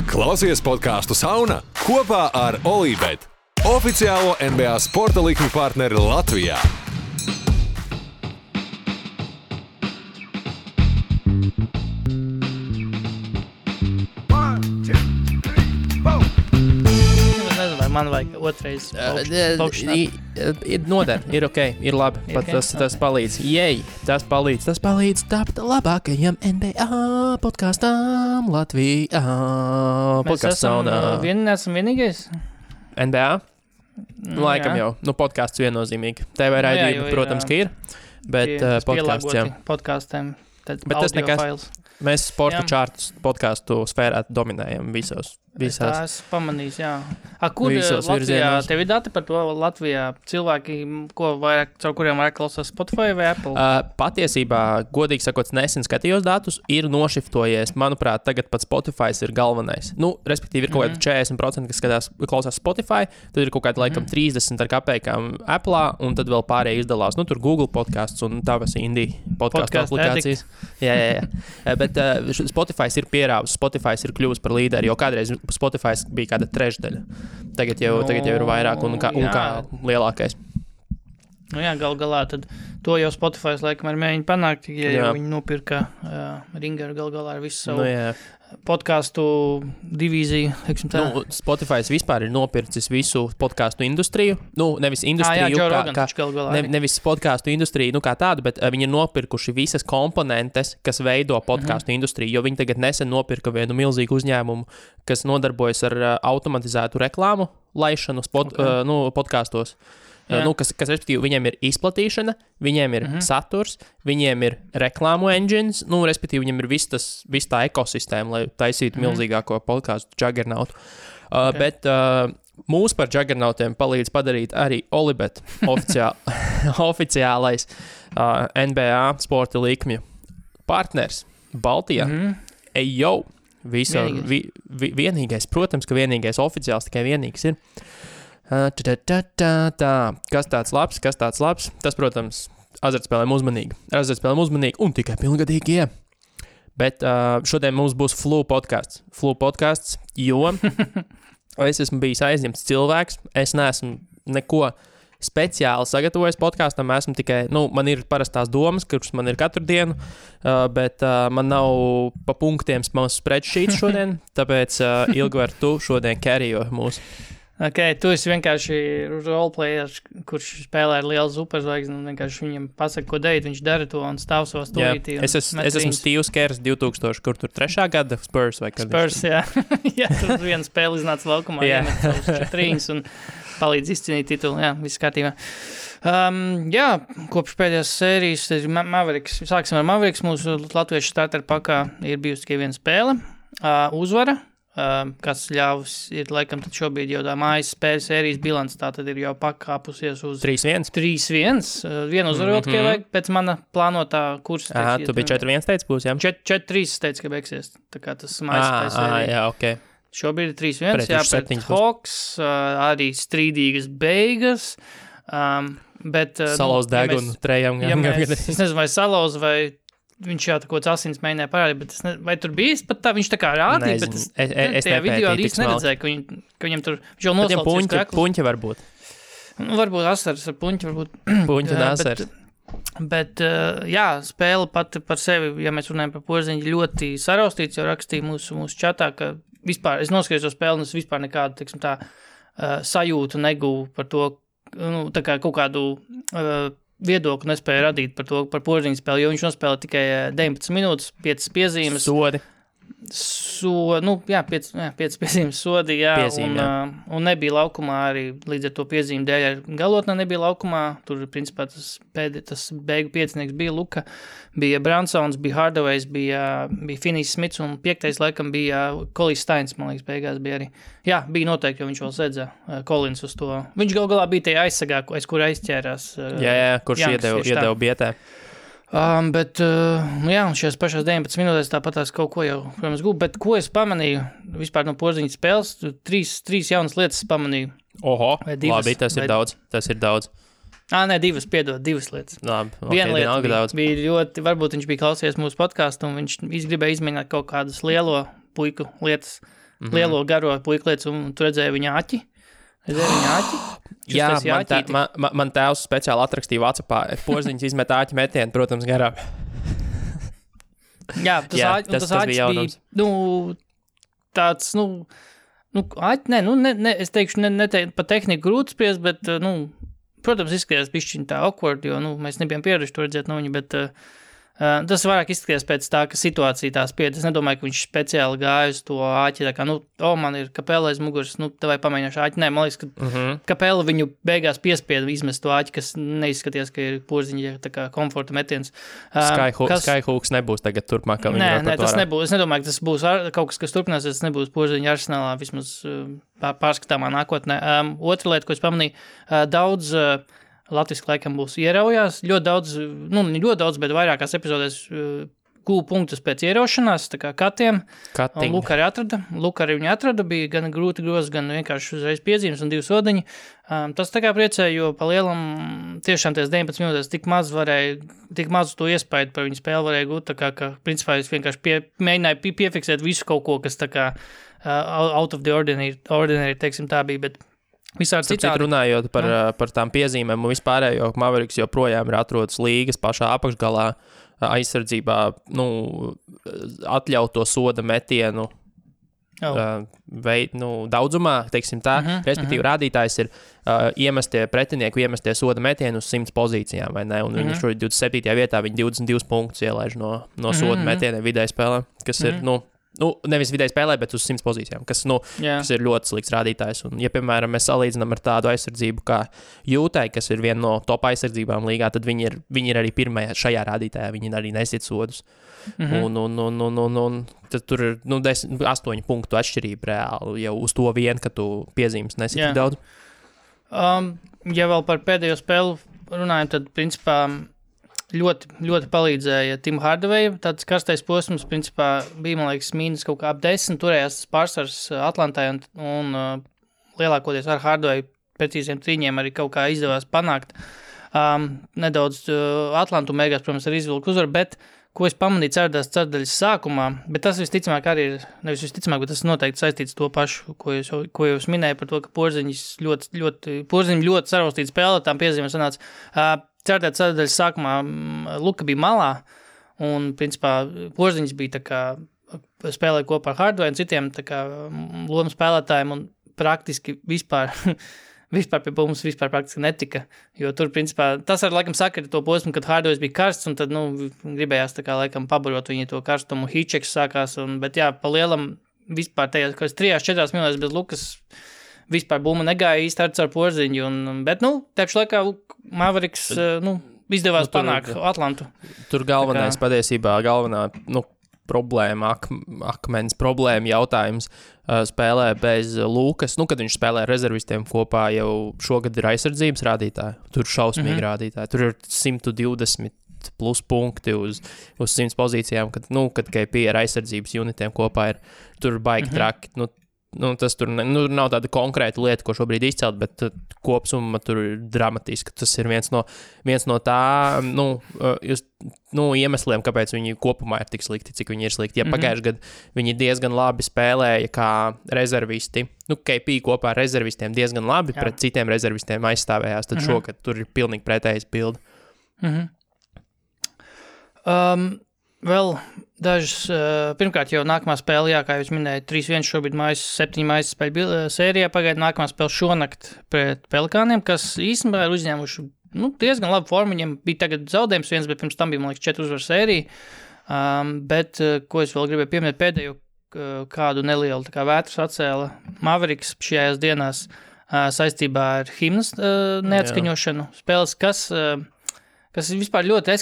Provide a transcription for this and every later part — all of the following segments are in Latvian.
Klausies podcastu Sauna kopā ar Olībet, oficiālo NBA sporta likmi partneri Latvijā. Man vajag otrais ir noder, ir ok, ir labi, pat tas palīdz. Jej, tas palīdz tapt labākajam NBA podkastam Latvijā. Mēs esam vienīgais? NBA? Laikam jau, podcasts viennozīmīgi. TV raidījumi, protams, ka ir, bet podcasts jau. Podkastiem, tad bet audio fails. Mēs sporta čārtus podcastu sfērā dominējam visās. Es pamanīju, jā. Kur visos Latvijā, virzienos. tev ir dati par to Latvijā cilvēki, caur kuriem vairāk klausās Spotify vai Apple? Patiesībā, godīgi sakot, nesen skatījos datus, ir nošiftojies. Manuprāt, tagad pat Spotify ir galvenais. Respektīvi, ir kaut kādi 40%, kas klausās Spotify, tad ir kaut kādi laikam 30 ar kapekām Apple, un tad vēl pārējie izdalās. Tur Google podcasts un tavas indie podcastu aplikācijas. Jā. Bet Spotify ir pierāvis, Spotify ir kļuvis par līderi, jo kādreiz Spotify bija kāda trešdaļa. Tagad jau ir vairāk un kā lielākais. Gal galā, tad to jau Spotify laikam ir mēģina panākt, ja viņi nopirka Ringeru gal galā ar visu savu podcastu divīziju. Spotify vispār ir nopircis visu podcastu industriju. Nevis industriju, nevis podcastu industriju kā tādu, bet viņi ir nopirkuši visas komponentes, kas veido podcastu industriju, jo viņi tagad nesen nopirka vienu milzīgu uzņēmumu, kas nodarbojas ar automatizētu reklāmu laišanu podkastos. Kas respektīvi, viņiem ir izplatīšana, viņiem ir saturs, viņiem ir reklāmu engines, respektīvi, viņiem ir viss tā ekosistēma, lai taisītu milzīgāko podcastu juggernautu. Bet mūs par juggernautiem palīdz padarīt arī Olībet oficiālais NBA sporta likmju partners Baltijā. Ejo! Vienīgais, protams, ka vienīgais oficiāls, tikai vienīgs ir. Kas tāds labs? Tas, protams, azartspēlēm uzmanīgi un tikai pilngadīgie. Bet šodien mums būs Flu podcasts, jo es esmu bijis aizņemts cilvēks, es neesmu neko speciāli sagatavojis podkastam, esmu tikai, man ir parastās domas, kuras man ir katru dienu, bet man nav pa punktiem spreadsheets šodien, tāpēc Ilgvar, tu šodien carryo mūsu. Ok, tu esi vienkārši roleplayers, kurš spēlē ar lielu superzvaigzni, un vienkārši viņam pasaka, ko darīt, viņš dara to un stāv savā stūrītī. Es esmu Steve's Kerrs 2000, kur tur 3. gada Spurs vai kad? Spurs, jā. Jā, tur viena spēle iznāca laukumā, iemet savus 4 un palīdz izcīnīt titulu, jā, viss kārtībā. Kopš pēdējās sērijas ir Mavericks. Sāksim ar Mavericks, mūsu latviešu starter pakā ir bijusi tikai viena spēle, uzvara. Kas ļāvis ir, laikam, tad šobrīd jau tā mājas spēles sērijas bilants, tā tad ir jau pakāpusies uz 3-1. Vienu uzvaru vēl tikai vajag pēc mana plānotā kursa. Tu biji 4-1 teici būs, jā? 4-3 teici, ka beigsies, tā kā tas mājas spēles sērija. Jā, ok. Šobrīd ir 3-1, pret Hawks, arī strīdīgas beigas, bet... Salauz degunu trejam. Es nezinu, vai salauz, vai... Viņš jau kaut kāds asins mēģināja parādīt, bet vai tur bija pat tā, viņš tā kā rādīja, bet es tajā video īsti neredzēju, ka viņam tur, viņš jau noslaucīs kreklu. Puņķi varbūt. Varbūt asaras ar puņķi, varbūt. Puņķi un asaras. Bet, spēle pati par sevi, ja mēs runājam par Porziņu, ļoti saraustīts, jau rakstīja mūsu čatā, ka vispār, es noskatījos to spēli, un es vispār nekādu, teiksim tā, sajūtu negūvu par to, tā kā kaut kādu... viedokli nespēja radīt par Porziņu spēli, jo viņš nospēlē tikai 19 minūtes, 5 piezīmes. Sodi. 5 piezīmes sodi, un nebija laukumā arī līdz ar to piezīmu dēļ. Galotnē nebija laukumā, tur principā tas beigu piecinieks bija Luka, bija Bransons, bija Hardaway's, bija Finnijs Smits un 5. laikam bija Kolijs Steins, man liekas, beigās bija arī. Jā, bija noteikti, jo viņš vēl sedza Kolins uz to. Viņš galā bija tajā aizsagā, aiz kur aizķērās. Kurš iedeva bietē. Bet, šajās pašās 19 minūtēs tāpatās kaut ko jau, protams, gūp, bet ko es pamanīju vispār no Porziņas spēles, trīs jaunas lietas pamanīju. Oho, labi, tas ir daudz. Divas lietas. Labi, viena lieta bija ļoti, varbūt viņš bija klausījies mūsu podcastu un viņš gribēja izmēģināt kaut kādas lielo puiku lietas. lielo garo puiklietis, un tu redzēji viņa aķi. Jā, man tēvs speciāli atrakstīja WhatsAppā, Porziņš izmet āķi metienu, protams, garām. Jā, tas āķis bija, tāds, es teikšu, ne pa tehniku grūti spriest, bet, protams, izskatījās bišķiņ tā awkward, jo, mēs nebijām pieraduši to redzēt no viņa, bet tas vairāk izskatījās pēc tā, ka situācija tā spied. Es nedomāju, ka viņš speciāli gāja uz to āķi, tā kā, man ir Kapela aiz muguras, vai pamēģināšu āķi. Nē, man liekas, ka Kapela viņu beigās piespieda izmest to āķi, kas neizskatījās, ka ir Porziņa tā kā komforta metiens. Skyhooks nebūs tagad turpmāk. Nē, tas nebūs. Es nedomāju, ka tas būs kaut kas turpināsies, tas nebūs Porziņa arsenālā vismaz pārskatāmā nākotnē. Otra lieta, ko es pamanīju, daudz latviski laikam būs ieraujās, ļoti daudz, bet vairākās epizodēs gūl punktus pēc ieraušanās, tā kā katiem. Luka arī viņu atrada, bija gan grūti grozi, gan vienkārši uzreiz piezīmes un 2 sodiņi. Tas tā kā priecēja, jo pa lielam tiešām ties 19 minūtēs tik maz to iespaidu par viņu spēli varēja gūt, tā kā, ka principā es vienkārši mēģināju piefiksēt visu kaut ko, kas tā kā out of the ordinary, teiksim tā bija, bet visādi citādi. Runājot par tām piezīmēm un vispārējo, Mavericks joprojām ir atrodas līgas pašā apakšgalā aizsardzībā, atļauto soda metienu daudzumā, teiksim tā, respektīvi rādītājs ir pretinieku iemestie soda metienu uz 100 pozīcijām, vai ne? Un viņi šodien 27. vietā, viņi 22 punktus ielaiž no soda metieniem vidēji spēlē, kas ir, nevis vidēji spēlē, bet uz 100 pozīcijām, kas ir ļoti slikts rādītājs. Un, ja, piemēram, mēs salīdzinām ar tādu aizsardzību kā Jūtai, kas ir viena no top aizsardzībām līgā, tad viņi ir arī pirmajā šajā rādītājā, viņi arī nesit sodus. Un tad tur ir 8 punktu atšķirība reāli jau uz to vien, ka tu piezīmes nesit tik daudz. Ja vēl par pēdējo spēlu runājam, tad, principā, ļoti, ļoti palīdzēja Tim Hardaway. Tāds karstais posms, principā, bija, man liekas, mīnus kaut kā ap 10. Turējās tas pārsvars Atlantai un lielākoties ar Hardaway precīziem trīņiem arī kaut kā izdevās panākt. Nedaudz Atlantu beigās, protams, ar izvilku uzvaru, bet ko es pamanīju ceturdaļas sākumā, bet tas visticamāk arī ir, nevis visticamāk, bet tas noteikti saistīts to pašu, ko jūs minēju par to, ka Porziņš ļoti saraustīts spēlē, tām piezīmēm sanāca. Ceturdaļas sākumā Luka bija malā, un, principā, Porziņš bija tā kā spēlēja kopā ar Hardaway un citiem tā kā lomu spēlētājiem, un praktiski vispār pie mums praktiski netika, jo tur, principā, tas ar laikam sakari to posmu, kad Hardaway bija karsts, un tad, gribējās tā kā laikam pabarot viņu to karstumu, Hitcheks sākās, bet jā, pa lielam vispār tajās, kas 3-4 minūtēs bez Lukas vispār bumma negāja īsti ar Porziņu, bet, tepšu laikā Mavericks, izdevās panākt Atlantu. Tur galvenā problēma, akmens problēma jautājums spēlē bez Lukas, kad viņš spēlē rezervistiem kopā jau šogad ir aizsardzības rādītāji, tur šausmīgi rādītāji, tur ir 120 plus punkti uz 100 pozīcijām, kad KP ar aizsardzības unitiem kopā ir, tur baigi traki, tas tur nav tāda konkrēta lieta, ko šobrīd izcelt, bet kopsumma tur ir dramatiski. Tas ir viens no tā, iemesliem, kāpēc viņi kopumā ir tik slikti, cik viņi ir slikti. Ja pagājuši gadu viņi diezgan labi spēlēja kā rezervisti, KP kopā ar rezervistiem diezgan labi pret citiem rezervistiem aizstāvējās, tad šogad tur ir pilnīgi pretējs bilde. Vēl dažas, pirmkārt jau nākamā spēle, kā jūs minējāt, 3-1 šobrīd 7 mājas spēļu sērijā, pagaida nākamā spēle šonakt pret Pelikāniem, kas īstenībā ir uzņēmuši diezgan labu formu, viņiem bija tagad zaudējums viens, bet pirms tam bija, man liekas, 4 uzvaru sērija, bet, ko es vēl gribēju pieminēt pēdējo kādu nelielu tā kā vētras atcēla Mavericks šajās dienās saistībā ar himnas neatskaņošanu spēles, kas vispār ļoti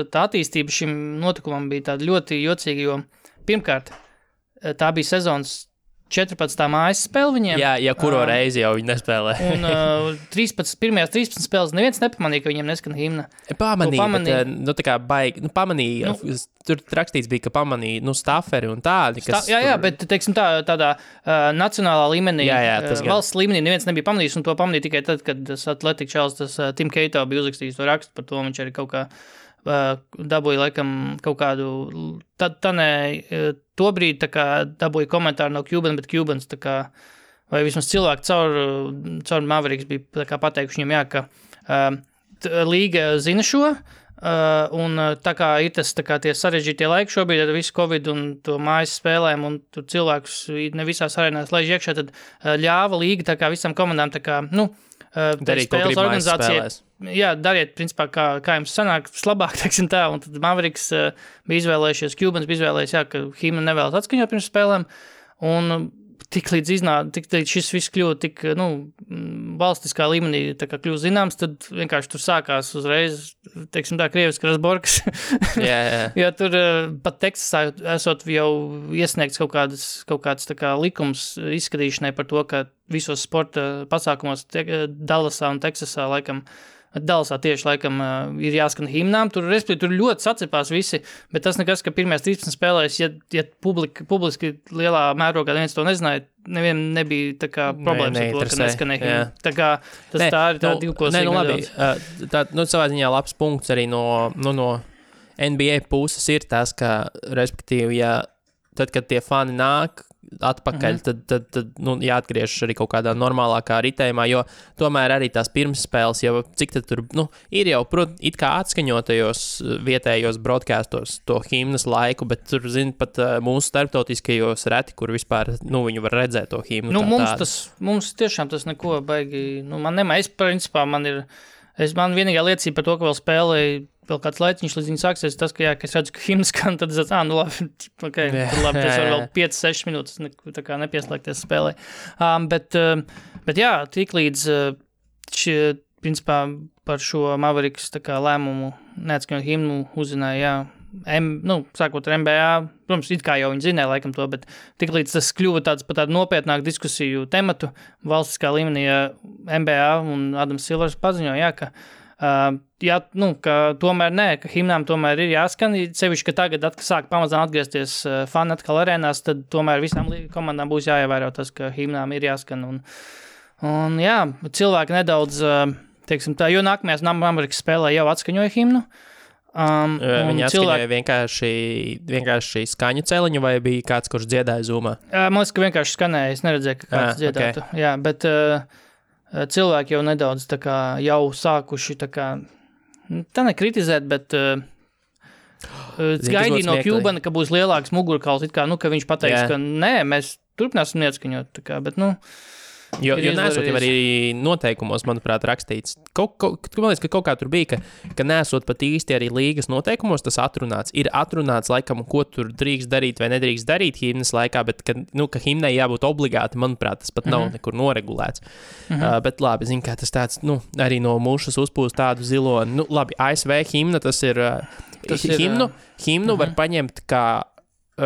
tā attīstība šim notikumam bija tāda ļoti jocīga, jo pirmkārt, tā bija sezonas 14. mājas spēle viņiem. Jā, kuro reizi jau viņi nespēlē. Un pirmajās 13 spēles neviens nepamanīja, ka viņiem neskan himna. Pamanīja, bet tā kā baigi, pamanīja, tur rakstīts bija, ka pamanīja, staferi un tādi, kas... Jā, bet, teiksim, tādā nacionālā līmenī, valsts līmenī neviens nebija pamanījis, un to pamanīja tikai tad, kad tas Athletic Chels, tas Tim Keito bija uzrakstījis to rakstu par to, viņš arī kaut kā dabūja laikam kaut kādu, to brīdi tā kā dabūja komentāru no Cuban, bet Cubans tā kā, vai vismaz cilvēki caur Mavericks bija tā kā pateikuši viņam, ka līga zina šo, un tā kā ir tas tā kā tie sarežģītie laiki šobrīd ar visu Covid un to mājas spēlēm un tur cilvēkus ne visās arēnās laiž iekšā, tad ļāva līga tā kā visam komandām tā kā, darīt spēles organizācija. Jā, dariet, principā, kā jums sanāk labāk, teiksim tā, un tad Mavericks bija izvēlējušies, Cubans bija izvēlējies, ka himnu nevēlas atskaņot pirms spēlēm, un tik līdz šis viss kļuva tik, valstiskā līmenī tā kā kļuva zināms, tad vienkārši tur sākās uzreiz, teiksim tā, krieviski rasborkas. Jā. Jo tur pat Teksasā esot jau iesniegts kaut kāds tā kā likums izskatīšanai par to, ka visos sporta pasākumos Dallasā un Teksasā laikam Dallasā tieši laikam ir jāskan himnām, tur ļoti sacepās visi, bet tas nekas, ka pirmajās 13 spēlēs, ja publiski lielā mērogā neviens to nezināja, nevienam nebija tā kā problēmas ar to, ka neskanēja himna. Tā kā tā ir tā divkosīga nedaudz. Tā, savā ziņā labs punkts arī no NBA puses ir tas, ka, respektīvi, tad, kad tie fani nāk atpakaļ, tad jāatgriežas arī kaut kādā normālākā ritējumā, jo tomēr arī tās pirmsspēles jau, cik tad tur, ir jau, it kā atskaņotajos vietējos broadcastos to himnas laiku, bet tur, pat mūsu starptautiskajos reti, kur vispār, viņu var redzēt to himnu. Mums tiešām tas neko baigi, principā, man vienīgā liecība par to, ka vēl spēlēju vēl kāds laiciņš līdz viņi sāksies, tas, ka es redzu, ka himnas skan, tad es labi, tad labi, es varu vēl 5-6 minūtes tā kā nepieslēgties spēlē. Bet jā, tik līdz principā par šo Mavericks tā kā lēmumu neatskaņot himnu uzzināja, sākot ar NBA, protams, it kā jau viņi zināja laikam to, bet tik līdz tas kļuva tāds par tādu nopietnāku diskusiju tematu valstiskā līmenī NBA un Adams Silvers paziņoja, ka ka tomēr ka himnām tomēr ir jāskan, sevišķi, ka tagad sāk pamazām atgriezties fani atkal arēnās, tad tomēr visām komandām būs jāievēro tas, ka himnām ir jāskan, un jā, cilvēki nedaudz, teiksim tā, jo nākamajās Amerikas spēlē jau atskaņoja himnu. Viņi atskaņoja vienkārši skaņu celiņu, vai bija kāds, kurš dziedāja Zoomā? Man liekas, ka vienkārši skanēja, es neredzēju, ka kāds dziedātu, jā, bet cilvēki jau nedaudz tā kā jau sākuši tā kā, tā nekritizēt, bet gaidīja no Cubana, ka būs lielāks mugurkauls, it kā, ka viņš pateiks, ka nē, mēs turpināsim neatskaņot, tā kā, bet, Jo nesot jau arī noteikumos, manuprāt, rakstīts. Man liekas, ka kaut kā tur bija, ka nesot pat īsti arī līgas noteikumos tas atrunāts. Ir atrunāts, laikam, ko tur drīkst darīt vai nedrīkst darīt himnas laikā, bet, ka himnai jābūt obligāti, manuprāt, tas pat nav nekur noregulēts. Bet labi, zinu, kā tas tāds, arī no mušas uzpūst tādu ziloni. Labi, ASV himna, tas ir himnu var paņemt kā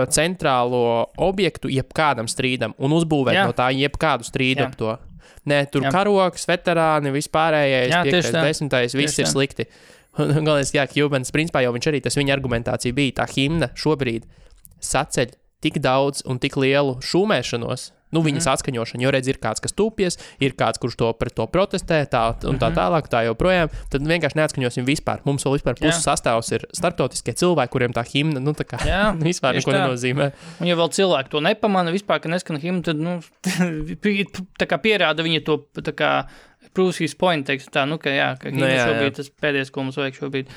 centrālo objektu jebkādam strīdam un uzbūvēt no tā jebkādu strīdu ap to. Nē, tur karoks, veterāni, vispārējais, 5. 10. viss ir slikti. Galvenais, Cubans, principā jau viņš arī, tas viņa argumentācija bija, tā himna šobrīd saceļ tik daudz un tik lielu šūmēšanos, viņas atskaņošana, jo redz, ir kāds, kas tūpies, ir kāds, kurš pret to protestē, tā tālāk, tā joprojām, tad vienkārši neatskaņosim vispār. Mums vēl vispār puses sastāvs ir starptautiskie cilvēki, kuriem tā himna, vispār neko nenozīmē. Un ja vēl cilvēki to nepamana vispār, ka neskan himna, tad, tā kā pierāda viņa to, tā kā, proves his point, teiksim tā, ka himna šobrīd tas pēdējais, ko mums vajag šobrīd.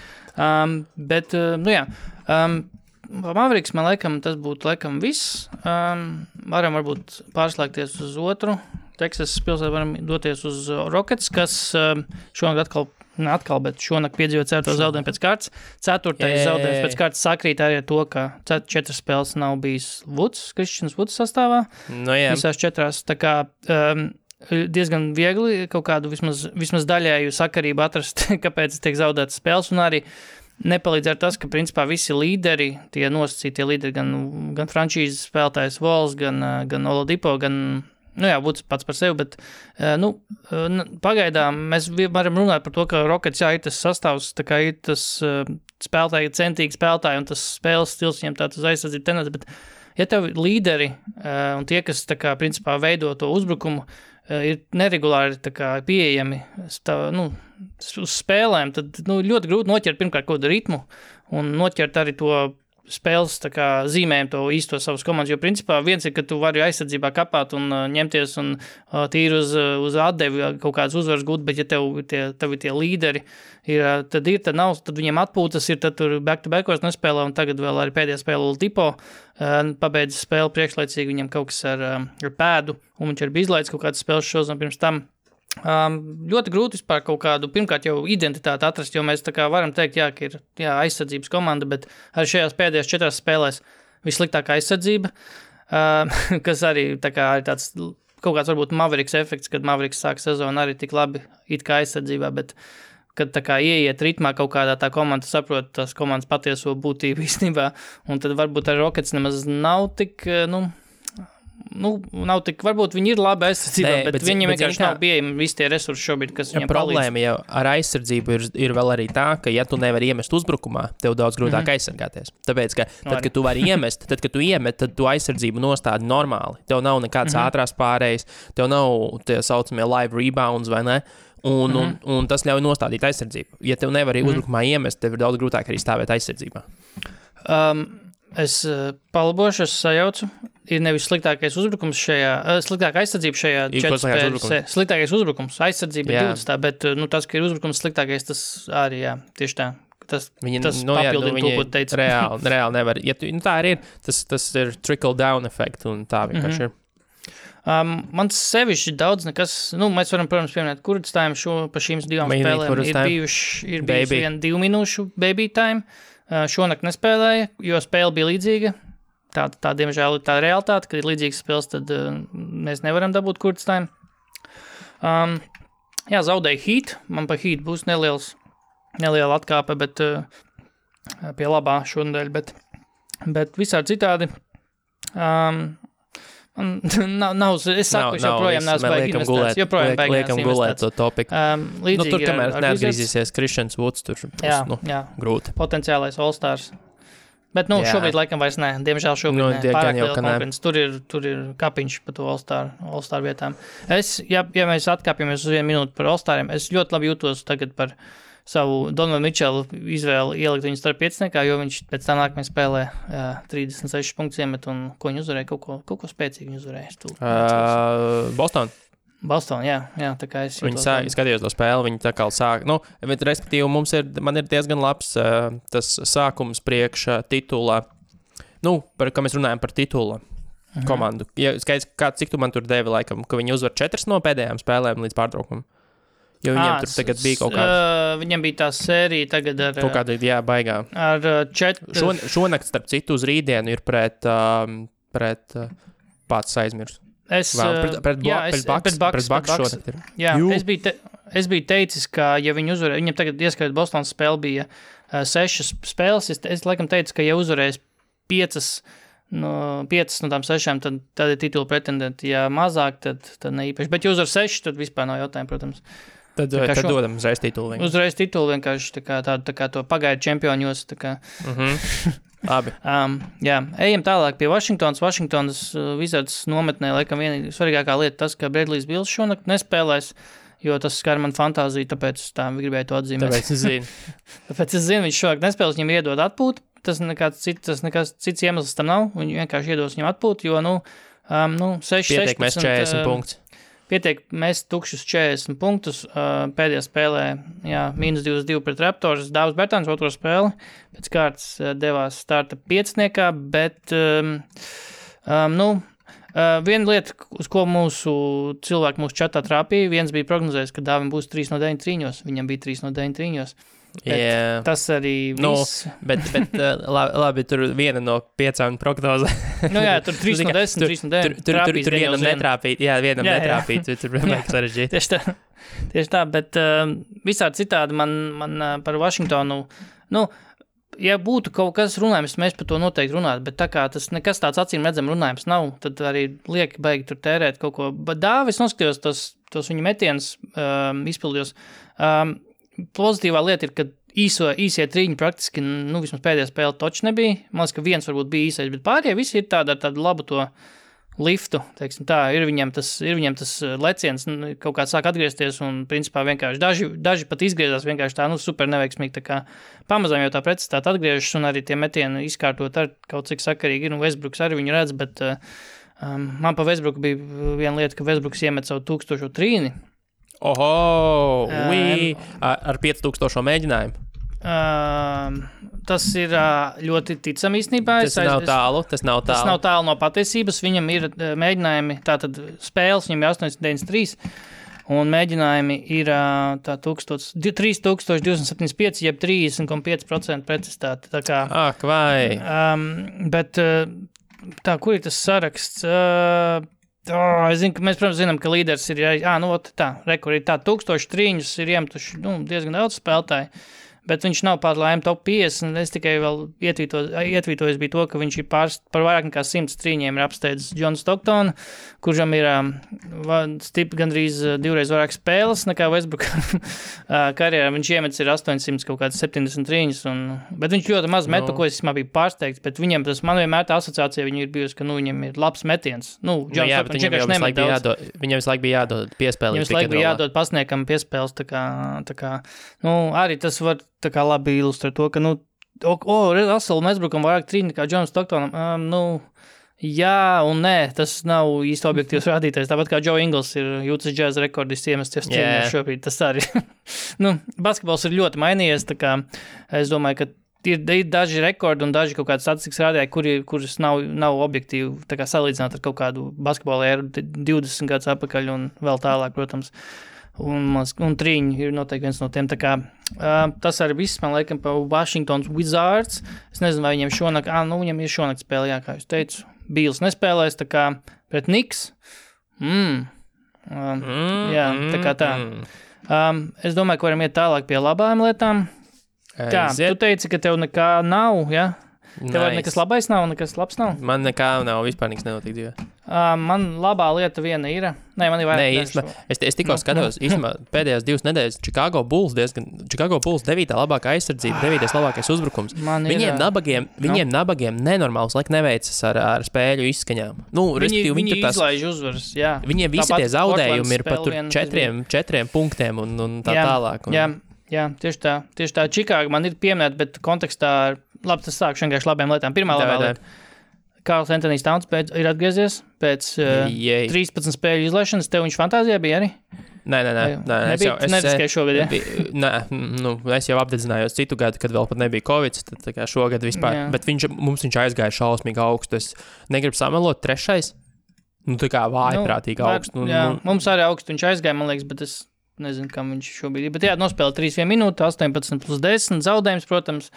Mavericks, man laikam, tas būtu laikam viss. Varam varbūt pārslēgties uz otru. Teksasas pilsētu varam doties uz Rockets, kas šonakt bet šonakt piedzīvo 4. zaudējumu pēc kārtas. 4. zaudējums pēc kārtas sakrīt arī ar to, ka 4 spēles nav bijis Christians Woods sastāvā. Visās 4. Tā kā diezgan viegli kaut kādu vismaz daļēju sakarību atrast, kāpēc tiek zaudētas spēles, un arī nepalīdz ar tas, ka principā visi līderi, tie nosacītie līderi, gan frančīzes spēlētājs Vols, gan Oladipo, gan, Woods pats par sevi, bet, pagaidām mēs varam runāt par to, ka Rockets, ir tas sastāvs, tā kā ir tas spēlētāji, centīgi spēlētāji, un tas spēles stils viņiem tāds uz aizsardzību tendenci, bet ja tev līderi un tie, kas tā kā principā veido to uzbrukumu, ir neregulāri tā kā pieejami uz spēlēm, tad ļoti grūti noķert pirmkārt kaut kādu ritmu un noķert arī to spēles tā kā zīmējumu to īsto savas komandas, jo principā viens ir, ka tu vari aizsardzībā kapāt un ņemties un tīri uz atdevi kaut kādas uzvaras gūt, bet ja tev ir tie līderi, tad nav, tad viņiem atpūtas ir, tad tur back-to-backos nespēlē un tagad vēl arī pēdējā spēle Ultipo pabeidz spēli priekšlaicīgi, viņam kaut kas ar pēdu un viņš ir izlaidis kaut kādas spēles šos un pirms tam. Ļoti grūti vispār kaut kādu, pirmkārt jau identitāti atrast, jo mēs tā kā varam teikt, ka ir aizsardzības komanda, bet arī šajās pēdējās 4 spēlēs vissliktākā aizsardzība, kas arī tā kā ir tāds kaut kāds varbūt Mavericks efekts, kad Mavericks sāk sezonu arī tik labi it kā aizsardzībā, bet kad tā kā ieiet ritmā kaut kādā tā komanda saprot tās komandas patieso būtību īstenībā, un tad varbūt arī Rockets nemaz nav tik, nav tik, varbūt viņi ir labi aizsardzībā, bet viņiem vienkārši nav pieejami visi tie resursi šobrīd, kas viņiem palīdz. Problēma jau ar aizsardzību ir vēl arī tā, ka ja tu nevari iemest uzbrukumā, tev daudz grūtāk aizsargāties. Tāpēc, ka tad, kad tu vari iemest, tad tu aizsardzību nostādi normāli. Tev nav nekādas ātrās pārējas, tev nav tie saucamie live rebounds vai ne, un tas ļauj nostādīt aizsardzību. Ja tev nevari uzbrukumā iemest, tev ir daudz grūtāk arī stāvēt aizsardzībā. Es palabošu, es sajaucu. Ir nevis sliktākais uzbrukums sliktākā aizsardzība šajā 4 spēlēs. Sliktākais uzbrukums, aizsardzība ir 20, bet tas, ka ir uzbrukums sliktākais, tas arī, tieši tā. Tas papildina to, ko teica. Reāli nevar. Ja tā arī ir, tas ir trickle down efekt, un tā vienkārši ir. Man sevišķi daudz nekas, mēs varam, protams, pieminēt Kurd time pa šīm 2 spēlēm. Ir bijuši 2 minūšu baby time. Šonakt nespēlēja, jo spēle bija līdzīga. Tā diemžēl ir tā realitāte, kad ir līdzīgas spēles, tad mēs nevaram dabūt Kurd time. Zaudēja Heat. Man pa Heat būs neliela atkāpe, bet pie labā šonadēļ, bet visādi citādi. Es saku, joprojām neesmu baigi investēts. Joprojām baigi liekam gulēt to topiku. Tur, kamēr neatgriezīsies Christians Woods, tur būs grūti. Potenciālais All-Stars. Bet, šobrīd laikam vairs ne. Diemžēl šobrīd ne. Pārāk liela konkurence. Tur ir kapiņš pa to All-Star vietām. Ja mēs atkāpjamies uz 1 minūti par All-Stariem, es ļoti labi jūtos tagad par savu Donovan Mitchell izvēli ielikt viņu starp pieciniekā, jo viņš pēc tam nākamajā spēlē 36 punktus iemet un ko viņi uzvarēja, kaut ko spēcīgi viņi uzvarēja. Boston, jā, tā kā es jūtos. Viņi skatījos to spēli, viņi tā kā sāk, respektīvi man ir diezgan labs tas sākums priekš titula, par kā mēs runājam par titula komandu. Ja skaidrs, cik tu man tur devi laikam, ka viņi uzvar 4 no pēdējām spēlēm līdz pārtraukumam? Jo viņiem tur tagad bija kaut kāda... Viņam bija tā sērija tagad ar... Kaut kāda, baigā. Ar 4... Šonakt, starp citu, uz rītdienu ir pret pats aizmirs. Pret Bucks šonakt ir. Jā, es biju teicis, ka ja viņi uzvarēja... Viņam tagad ieskait Bostonas spēle bija 6 spēles. Es laikam teicu, ka ja uzvarēs 5 no tām 6, tad ir titula pretendenti. Ja mazāk, tad ne īpaši. Bet ja uzvar 6, tad vispār nav jautājumu, protams. Tad dodam uzreiz titulu. Uzreiz titulu vienkārši tā kā to pagaidu čempioņos. Labi. Ejam tālāk pie Vašingtonas. Vašingtonas Wizards nometnē, laikam viena svarīgākā lieta tas, ka Bradley's Bills šonakt nespēlēs, jo tas skar man fantāziju, tāpēc tā gribēju to atzīmēt. Tāpēc es zinu, viņš šonakt nespēlēs, viņam iedod atpūtu. Tas nekas cits iemesls tam nav. Viņi vienkārši iedos viņam atpūtu, jo 6-16... Pietiek mēs 40 punktus. Pietiek mēs tukšus 40 punktus. Pēdējā spēlē, -22 pret Raptors. Dāvs Bertāns otro spēli. Pēc kārtas devās starta pieciniekā, bet viena lieta, uz ko mūsu čatā trāpīja, viens bija prognozējis, ka Dāvim būs 3 no 9 trīņos. Viņam bija 3 no 9 trīņos. Tas arī viss. Bet labi, tur viena no 5 prognozē. Tur 3 no 10, 3 no 9. Tur vienam netrāpīt. Jā, vienam netrāpīt. Tur vienmēr sarežģīt. Tieši tā, bet visādi citādi man par Vašingtonu, ja būtu kaut kas runājums, mēs par to noteikti runātu, bet tā kā tas nekas tāds acīm redzam runājums nav, tad arī lieki baigi tur tērēt kaut ko. Bet Dāvis noskatījos tos viņa metienus izpildījos. Pozitīvā lieta ir, ka īsie triņi praktiski, nu, vismaz pēdējā spēle toči nebija. Man liekas, ka viens varbūt bija īsais, bet pārējie visi ir tādu labu to liftu, teiksim tā, ir viņam tas leciens, kaut kā sāk atgriezties un, principā, vienkārši daži pat izgriezās vienkārši tā, nu, super neveiksmīgi, tā kā pamazām jau tā precizitāte atgriežas un arī tie metieni izkārtot ar kaut cik sakarīgi ir, un Westbrooks arī viņu redz, bet man pa Westbrooku bija viena lieta, ka Westbrooks iemet savu 1000 trīni. Oho, ar 5000 mēģinājumu. Tas ir ļoti ticam īstenībā. Tas nav tālu. Tas nav tālu no patiesības. Viņam ir mēģinājumi, tātad spēles, viņam ir 893, un mēģinājumi ir 3275, jeb 30,5% precizitāte. Tā kā, ak, vai. Bet tā, kur ir tas saraksts? Es zinu, ka mēs, protams, zinām, ka līderis ir, rekur ir 1000 trīņus, ir iemetuši diezgan daudz spēlētāji. Bet viņš nav pār laimi top 50, un es tikai vēl ietvītojis bija to, ka viņš ir par vairāk nekā 100 trīņiem ir apsteidzis John Stockton, kuram ir gandrīz divreiz vairāk spēles nekā Westbrook karjerā. Viņš iemetis ir 800 kaut kāds 70 trīņus, bet viņš ļoti maz met, ko es biju pārsteigts, bet viņam man vienmēr tā asociācija viņu ir bijusi, ka, viņam ir labs metiens. John Stockton vienkārši nemet daudz. Viņam visu laiku bija jādod piespēlīt. Viņam visu laiku bija jādod pasniekam piespēles, tā kā, arī tas var tā kā labi ilustrē to, ka, Russell Westbrookam vairāk trīņi nekā John Stocktonam, jā un nē, tas nav īsti objektīvs rādītājs, tāpat kā Joe Ingles ir Utah Jazz rekordists iemesties trīņos šobrīd, tas arī. Basketbols ir ļoti mainījies, tā kā es domāju, ka ir daži rekordi un daži kaut kādi statistikas rādītāji, kuras nav objektīvi, tā kā salīdzināt ar kaut kādu basketbola ēru 20 gadus atpakaļ un vēl tālāk, protams. Un trīņi ir noteikti viens no tiem, tā kā tas arī viss, man liekas, pa Washingtons Wizards. Es nezinu, vai viņiem šonakt, viņam ir šonakt spēle, jā, kā jūs teicu. Bīls nespēlēs, tā kā pret Knicks. Jā, tā kā tā. Es domāju, ka varam iet tālāk pie labām lietām. Kā, tu teici, ka tev nekā nav, jā? Tev nekas labais nav, nekas labs nav? Man nekā nav, vispār nekas nenotiek dzīvē. Man labā lieta viena ir. Nē, man ir vairāk. Es tikko skatos, īstenībā pēdējās 2 nedēļas Chicago Bulls 9. labākā aizsardzība, 9. labākais uzbrukums. Viņiem nabagiem nenormāls laik neveicas ar spēļu izskaņām. Viņi izlaiž uzvaras, jā. Viņiem visi tie zaudējumi ir pat tur 4 punktiem un tā tālāk. Jā, tieši tā. Chicago man ir pieminēta, bet kontekstā labi, tas sākšu vienkārši labiem lietām. Pirmā labā lieta. Karls Anthony Towns ir atgriezies pēc 13 spēļu izlaišanas. Tev viņš fantāzijā bija arī? Nē. Neriskēju šogad, ja? Es jau apdedzinājos citu gadu, kad vēl pat nebija Covid, tad tā kā šogad vispār. Jā. Bet viņš aizgāja šausmīgi augstu. Es negribu samelot 3. Tā kā vājprātīgi augstu. Mums arī augstu viņš aizgāja, man liekas, bet es nezinu, kam viņš šobrīd ir. Bet jā, nospēlē 3 minūtes, 18+10, zaudējums, protams.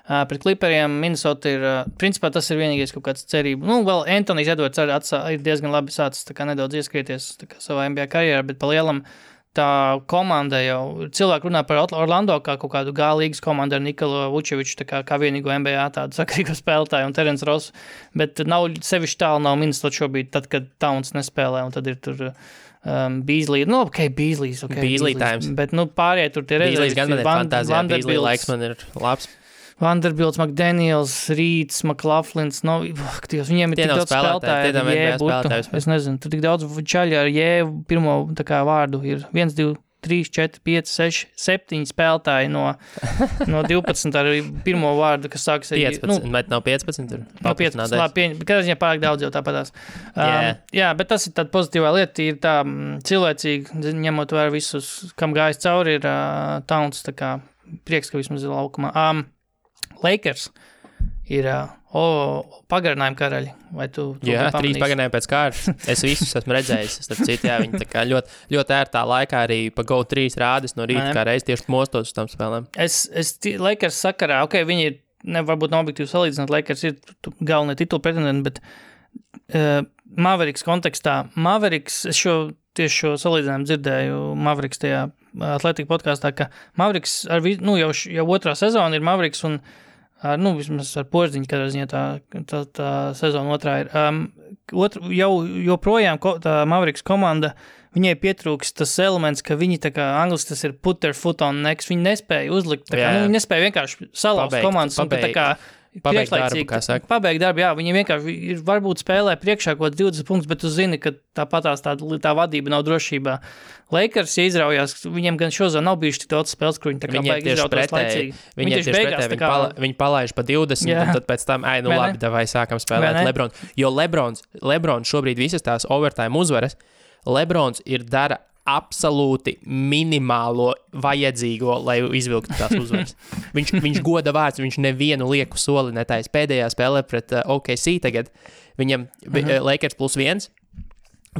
Pret Clipperiem Minnesota ir, principā tas ir vienīgais kaut kāds cerība. Vēl Anthony's Edwards ir diezgan labi sācis tā kā nedaudz ieskrieties tā kā savā NBA karjerā, bet pa lielam tā komanda jau, cilvēki runā par Orlando kā kaut kādu G-līgas komandu ar Nikolu Vučeviču, tā kā vienīgo NBA tādu sakarīgo spēlētāju un Terence Ross, bet sevišķi tālu nav Minnesota šobrīd, tad, kad Towns nespēlē, un tad ir tur Beasley, Beasley's, Beasley times. Bet, pārējie tur tie Beasley's gan man ir fantāzijā, Beasley laiks man ir labs. Vanderbilts, McDaniels, Reeds, McLaughlins, viņiem ir tik daudz spēlētāji. Es nezinu, tur tik daudz čaļi ar jēvu pirmo tā kā vārdu ir 1, 2, 3, 4, 5, 6, 7 spēlētāji no 12 ar pirmo vārdu, kas sākas ar 15, bet nav 15 tur. No 15, labi, kādā ziņā pārāk daudz jau tāpatās. Jā, bet tas ir tāda pozitīvā lieta, ir tā cilvēcīgi, ņemot vērā visus, kam gājis cauri, ir Towns, tā kā prieks, ka vismaz ir laukumā. Lakers ir pagarinājuma karaļi. Vai tu jā, 3 pagarinājumi pēc kārtas. Es visus esmu redzējis. Starp citu, jā, viņi tā kā ļoti ērtā laikā arī pa GO 3 rādis no rīta, kā reiz tieši mostos uz tam spēlēm. Lakers sakarā, viņi ir, varbūt nav objektīvi salīdzināt, Lakers ir galvenie titulu pretendenti, bet Mavericks kontekstā, es tieši šo salīdzinājumu dzirdēju Mavericks tajā Atlētika podkāstā, ka Mavericks jau 2. sezona ir Mavericks un Vismaz ar Porziņu, kādā ziņā tā sezona otrā ir. Joprojām tā Mavericks komanda, viņai pietrūks tas elements, ka viņi tā kā angliski tas ir put their foot on next, viņi nespēja uzlikt, viņi nespēja vienkārši salauzt komandas un tā kā pabeigt darbu, jā, viņi vienkārši varbūt spēlē priekšā kaut 20 punktus, bet tu zini, ka tāpatās tā vadība nav drošībā. Lakers, ja izraujās, viņiem gan šozā nav bijuši tik daudz spēles, kur viņi tā kā baigi izrautos laicīgi. Viņi tieši pretēji, viņi palaiž pa 20, un tad pēc tam, labi, davai sākam spēlēt Lebrons. Jo Lebrons šobrīd visas tās overtime uzvaras, Lebrons dara absolūti minimālo vajadzīgo, lai izvilktu tās uzvaras. Viņš goda vārds, viņš nevienu lieku soli netais. Pēdējā spēlē pret OKC tagad, viņam Lakers +1,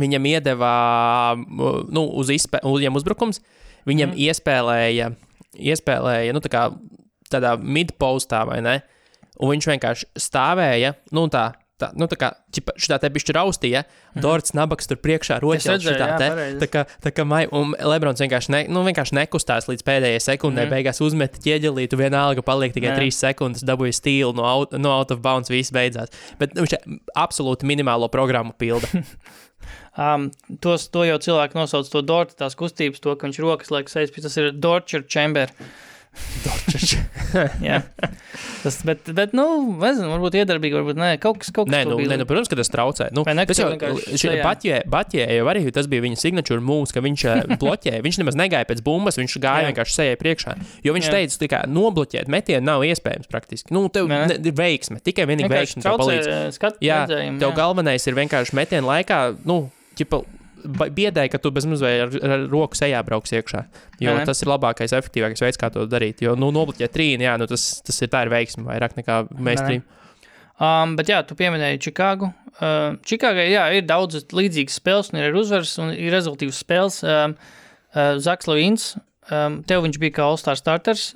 viņam iedeva viņam uzbrukums, viņam iespēlēja tā kā tādā mid-postā, vai ne? Un viņš vienkārši stāvēja, tā kā šitā te bišķi raustīja, Dorts Nabaks tur priekšā roķels šitā te, un Lebrons vienkārši nekustās līdz pēdējai sekundē, beigās uzmeta ķieģelītu, vienalga paliek tikai 3 sekundes, dabūja stīlu no out of bounds, viss beidzās. Bet viņš absolūti minimālo programmu pilda. To jau cilvēki nosauc to Dorta, tās kustības, to, ka viņš rokas liek sejas, tas ir Dorcher Chamber. Jā. Bet nezinu, varbūt iedarbīgi, varbūt nē, kaut kas protams, ka tas traucē. Batjē jau arī tas bija viņa signature moves, ka viņš bloķēja, viņš nemaz negāja pēc bumbas, viņš gāja vienkārši sejai priekšā, jo viņš teica, ka nobloķēt metienu nav iespējams praktiski. Tev ir veiksme, tikai vienīgi veiksme tev palīdz. Jā, tev galvenais ir vienkārši metienu laikā, biedēja, ka tu bez mazliet ar roku sejā brauks iekšā, jo tas ir labākais, efektīvākais veids, kā to darīt, jo, nobloķēt trīni, tas ir tā ir veiksme vairāk nekā mainstream. Bet jā, tu pieminēji Čikāgu. Čikāgai, ir daudz līdzīgas spēles, un ir uzvaras, un ir rezultīvas spēles. Zaks Lavīns, tev viņš bija kā All-Star starters,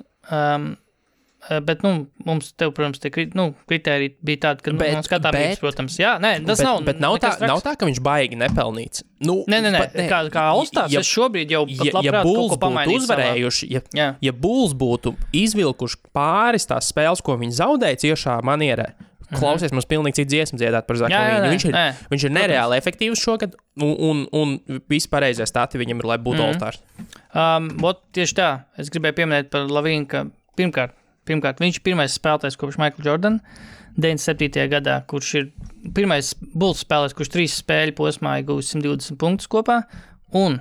bet, mums tev, protams, tie kritēriji bija tādi, ka skatāmies, protams. Jā, tas nav. Bet nav tā, ka viņš baigi nepelnīts. Nē, kā All-Stars, es šobrīd jau pat labprāt kaut ko pamainīju. Ja Bulls būtu izvilkuši pāris tās spēles, ko viņi zaudēja ciešā manierē, klausies, mums pilnīgi cits dziesmu dziedāt par Zaku Lavīnu. Viņš ir nereāli efektīvs šogad, un visi pareizie stati viņam ir, lai būtu All-Stars. Tieši tā, es gribēju pieminēt par Lavīnu, ka Pirmkārt, viņš ir pirmais spēlētājs kopš Michael Jordan 97. gadā, kurš ir pirmais Bulls spēlētājs, kurš 3 spēļu posmā ir guvis 120 punktus kopā, un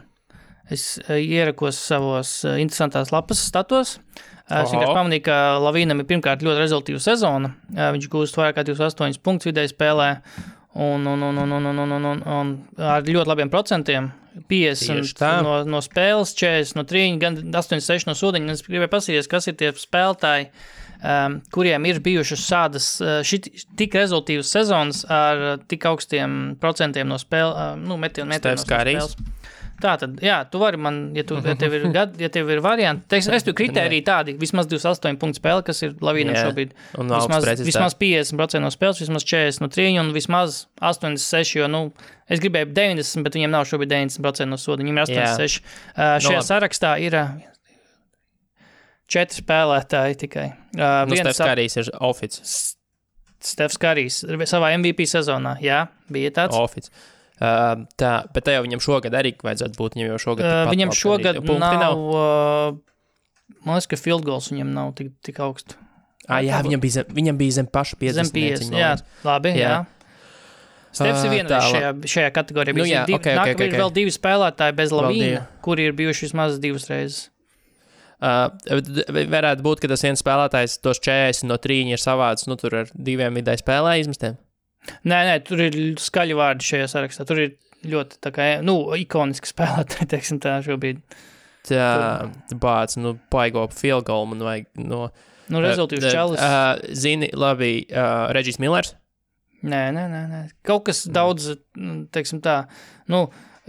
es ierakos savos interesantās lapas statos. Es vienkārši pamanīju, ka Lavīnam ir pirmkārt ļoti rezultīva sezona. Viņš gūst vairāk kā 28 punktus vidēji spēlē, un ar ļoti labiem procentiem. 50 no spēles, 40 no trīņa, gan 86 no sūdiņa. Es gribēju pasīties, kas ir tie spēlētāji, kuriem ir bijušas šādas tik rezultīvas sezonas ar tik augstiem procentiem no metienu no spēles. Tātad, jā, tu vari man, ja tev ir varianti, es tu kritēriju tādi, vismaz 28 punktu spēle, kas ir Lavīnam šobrīd. Vismaz 50% no spēles, vismaz 40 no trīņa un vismaz 86, jo, es gribēju 90, bet viņiem nav šobrīd 90% no soda, viņiem ir 86. Šajā sarakstā ir 4 spēlētāji tikai. Stefs Karijs ir oficis. Stefs Karijs savā MVP sezonā, jā, bija tāds. Oficis. Bet tā jau viņam šogad arī vajadzētu būt, viņam jau šogad viņam šogad nav, man liekas, ka field goals viņam nav tik augstu. Jā, viņam bija zem paša 50. Zem 50, jā, labi, jā. Stefs ir vienreiz šajā kategorijā. Ir vēl 2 spēlētāji bez Lavīna, kuri ir bijuši vismaz 2 reizes. Varētu būt, ka tas viens spēlētājs tos 40 no trīņa ir savāds, tur ar 2 vidēji spēlē izmestiem. Nē, tur ir skaļi vārdi šajā sarakstā. Tur ir ļoti tā kā, ikoniski spēlētāji, teiksim tā šobrīd. Paigo field goal man vajag rezultīvs čalis. Zini, labi, Regis Millers? Nē. Kaut kas daudz, teiksim tā,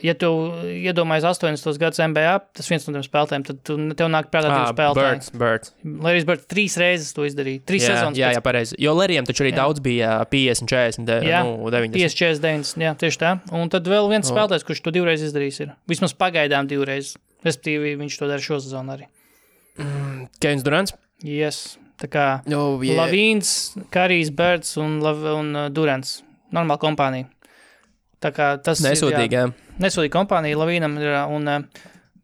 ja tu iedomājies 80. gadus NBA, tas viens no tiem spēlētājiem, tad tev nāk prātā 2 spēlētāji. Birds. Larry's Bird 3 reizes to izdarīja. 3 sezonas. Jā, pareizi. Jo Larry'am taču arī daudz bija 50, 40, 90. 50, 40, 90, jā, tieši tā. Un tad vēl viens spēlētājs, kurš to 2 reizes izdarījis ir. Vismaz pagaidām 2 reizes. Respektīvi, viņš to dara šo sezonu arī. Kevins Durants? Yes. Tā kā Lavīns, Karijs, Birds un Durants. Normāla kompānija. Tā kā tas nesūdīgi, nesūdīga kompānija Lavīnam ir, un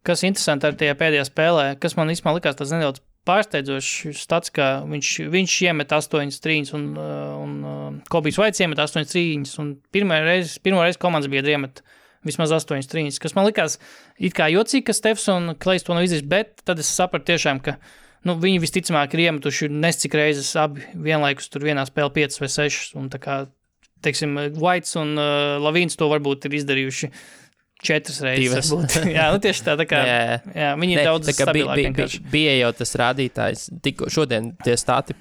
kas interesanti ar tajā pēdējā spēlē, kas man īstenībā likās tas nedaudz pārsteidzošs stats, ka viņš iemet 8 trīņas un Kobijs Vaits iemet 8 trīņas, un pirmo reizi komandas bija iemet vismaz 8 trīņas, kas man likās it kā jocīgi, ka Stefs un Klejs to nav izdarījis, bet tad es sapratu tiešām, ka viņi visticamāk ir iemetuši nescik reizes abi vienlaikus tur vienā spēlē 5 vai 6, un tā kā, teiksim, Vaits un Lavīns to varbūt ir izdarījuši 4 reizes. Jā, tieši tā kā, jā, viņi ir daudz stabilāki vienkārši. Bija jau tas rādītājs, tikko šodien tie stati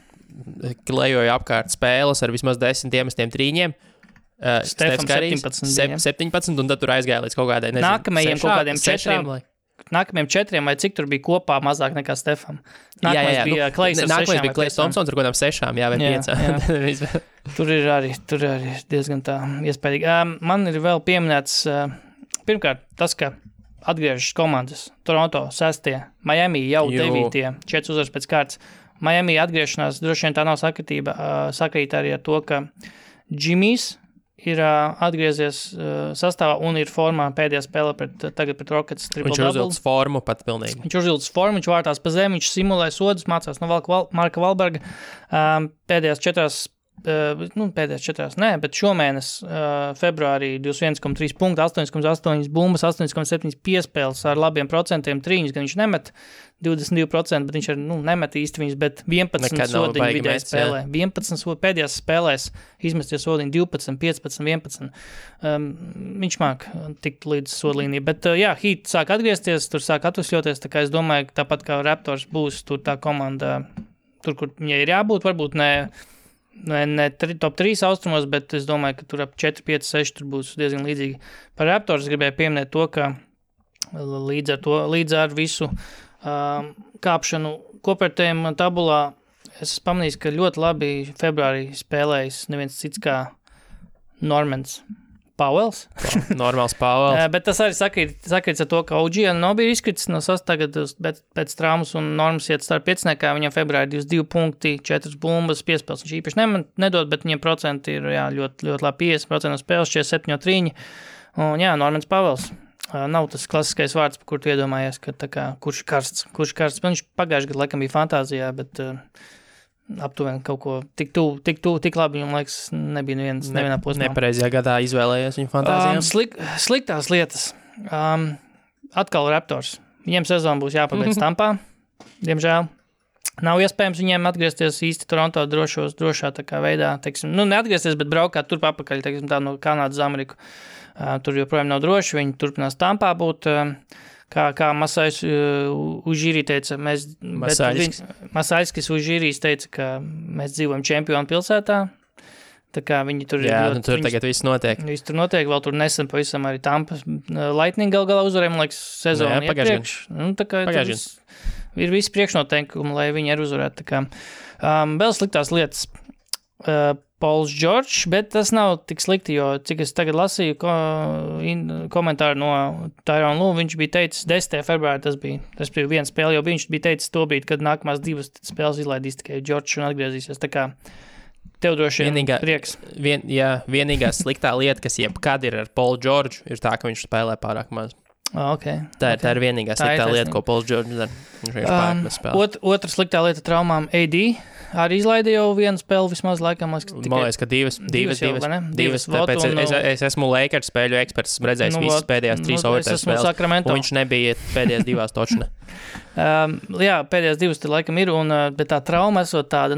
klejoja apkārt spēles ar vismaz 10 iemestiem trīņiem. Stefam 17, un tad tur aizgāja līdz kaut kādai, nezinu, nākamajiem kaut kādiem 4. Nākamajiem 4, vai cik tur bija kopā mazāk nekā Stefam. Nākamais bija Klejs ar 6. Nākamais bija Klejs Thompsons ar kādām 6, vai 5. Tur ir arī diezgan tā iespējīgi. Man ir vēl pieminēts pirmkārt, tas, ka atgriežas komandas Toronto 6, Miami jau 9, 4 uzvaras pēc kārtas. Miami atgriešanās, droši vien tā nav sakrīt arī ar to, ka Jimmys ir atgriezies sastāvā un ir formā pēdējā spēlē tagad pret Rockets triple double. Viņš uzvilcis formu pat pilnīgi. Viņš uzvilcis formu, viņš vārtās pa zemi, viņš simulē sodus, mācās no Marka Valberga. Pēdējās 4, bet šomēnes februārī 21,3 punkti, 8,8 bumbas, 8,7 piespēles ar labiem procentiem trīņus, gan viņš nemet 22%, bet viņš nemet īsti viņus, bet 11 sodiņu vidēji spēlē. 11 pēdējās spēlēs izmesties sodiņu 12, 15, 11. Viņš māk tikt līdz sodlīnija, bet Heat sāk atgriezties, tur sāk atvesļoties, tā kā es domāju, ka tāpat kā Raptors būs tur tā komanda, tur, kur viņai ir jābūt, varbūt ne top 3 austrumos, bet es domāju, ka tur ap 4, 5, 6 tur būs diezgan līdzīgi. Par Raptors gribēju pieminēt to, ka līdz ar visu kāpšanu kopērtējumu tabulā es pamanīju, ka ļoti labi februārī spēlējis neviens cits kā Normans Pauels. Normāls Pauels. Bet tas arī sakrīts ar to, ka OG nav bija izkritis no tagad, bet pēc traumas un Normas iet starp pieciniekā, viņam februārī 22 punkti, 4 bumbas, piespēles. Viņš īpaši nedod, bet viņiem procenti ir ļoti, ļoti labi 50% no spēles, 47 trīņi. Un Normans Pauels. Nav tas klasiskais vārds, par kur tu iedomājies, ka tā kā, kurš karsts. Viņš pagājuši gadu laikam bija fantāzijā, bet aptuveni kaut ko tik labi, viņam laiks nebija nevienā posmā. Nepareizajā gadā izvēlējies viņu fantāzijām. Sliktās lietas. Atkal Raptors. Viņiem sezona būs jāpabeidz Tampā, diemžēl. Nav iespējams viņiem atgriezties īsti Toronto drošā tā kā veidā, teiksim, neatgriezties, bet braukāt turp apakaļ, teiksim, tā no Kanādas uz Ameriku. Tur joprojām nav droši, viņi turpinās Tampā būt, kā Masājs Užīrī teica, Masājskis Užīrīs teica, ka mēs dzīvojam čempionu pilsētā, tā kā viņi tur tur tagad viss notiek. Viss tur notiek, vēl tur nesen pavisam arī Tampas Lightning galā uzvarēja, man liekas, sezonu iepriekš. Tā kā ir visi priekšnoteikumi, lai viņi arī uzvarētu, tā kā. Vēl sliktās lietas. Pauls George, bet tas nav tik slikti, jo cik es tagad lasīju komentāru no Tyrone Lue, viņš bija teicis 10. februārī, tas bija viena spēle, jo viņš bija teicis to brīdi, kad nākamās 2 spēles izlaidīs tikai George un atgriezīsies, tā kā tev droši prieks. Vienīgā sliktā lieta, kas jebkad ir ar Paulu George, ir tā, ka viņš spēlē pārāk maz. Okay. Tā ir vienīgā sliktā lieta, ko Pauls George dara. Otra sliktā lieta traumām AD. Arī izlaida jau vienu spēli vismaz laikam. Man liekas, ka divas. Tāpēc es esmu Lakers spēļu eksperts, esmu redzējis visas pēdējās 3 overtime spēles, un viņš nebija pēdējās 2 točne. Pēdējās 2 te laikam ir, bet tā trauma esot tāda,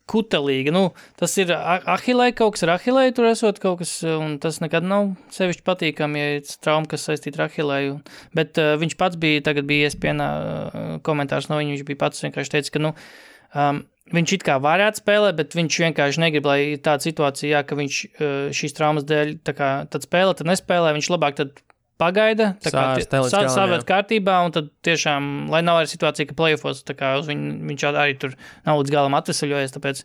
kutelīga. Tas ir ahilei, kaut kas ar ahilei tur esot kaut kas, un tas nekad nav sevišķi patīkami, ja ir trauma, kas saistīta ar ahilei. Bet viņš pats tagad bija ESPN komentārs no viņa, viņš bija pats vienkārši teica, ka, viņš it kā varētu spēlēt, bet viņš vienkārši negrib, lai ir tāda situācija, ka viņš šīs traumas dēļ, tad spēlē, tad nespēlē, viņš labāk tad pagaida, savērt kārtībā, un tad tiešām, lai nav arī situācija, ka playoffos, tā kā viņš arī tur nav līdz galam atvesaļojies, tāpēc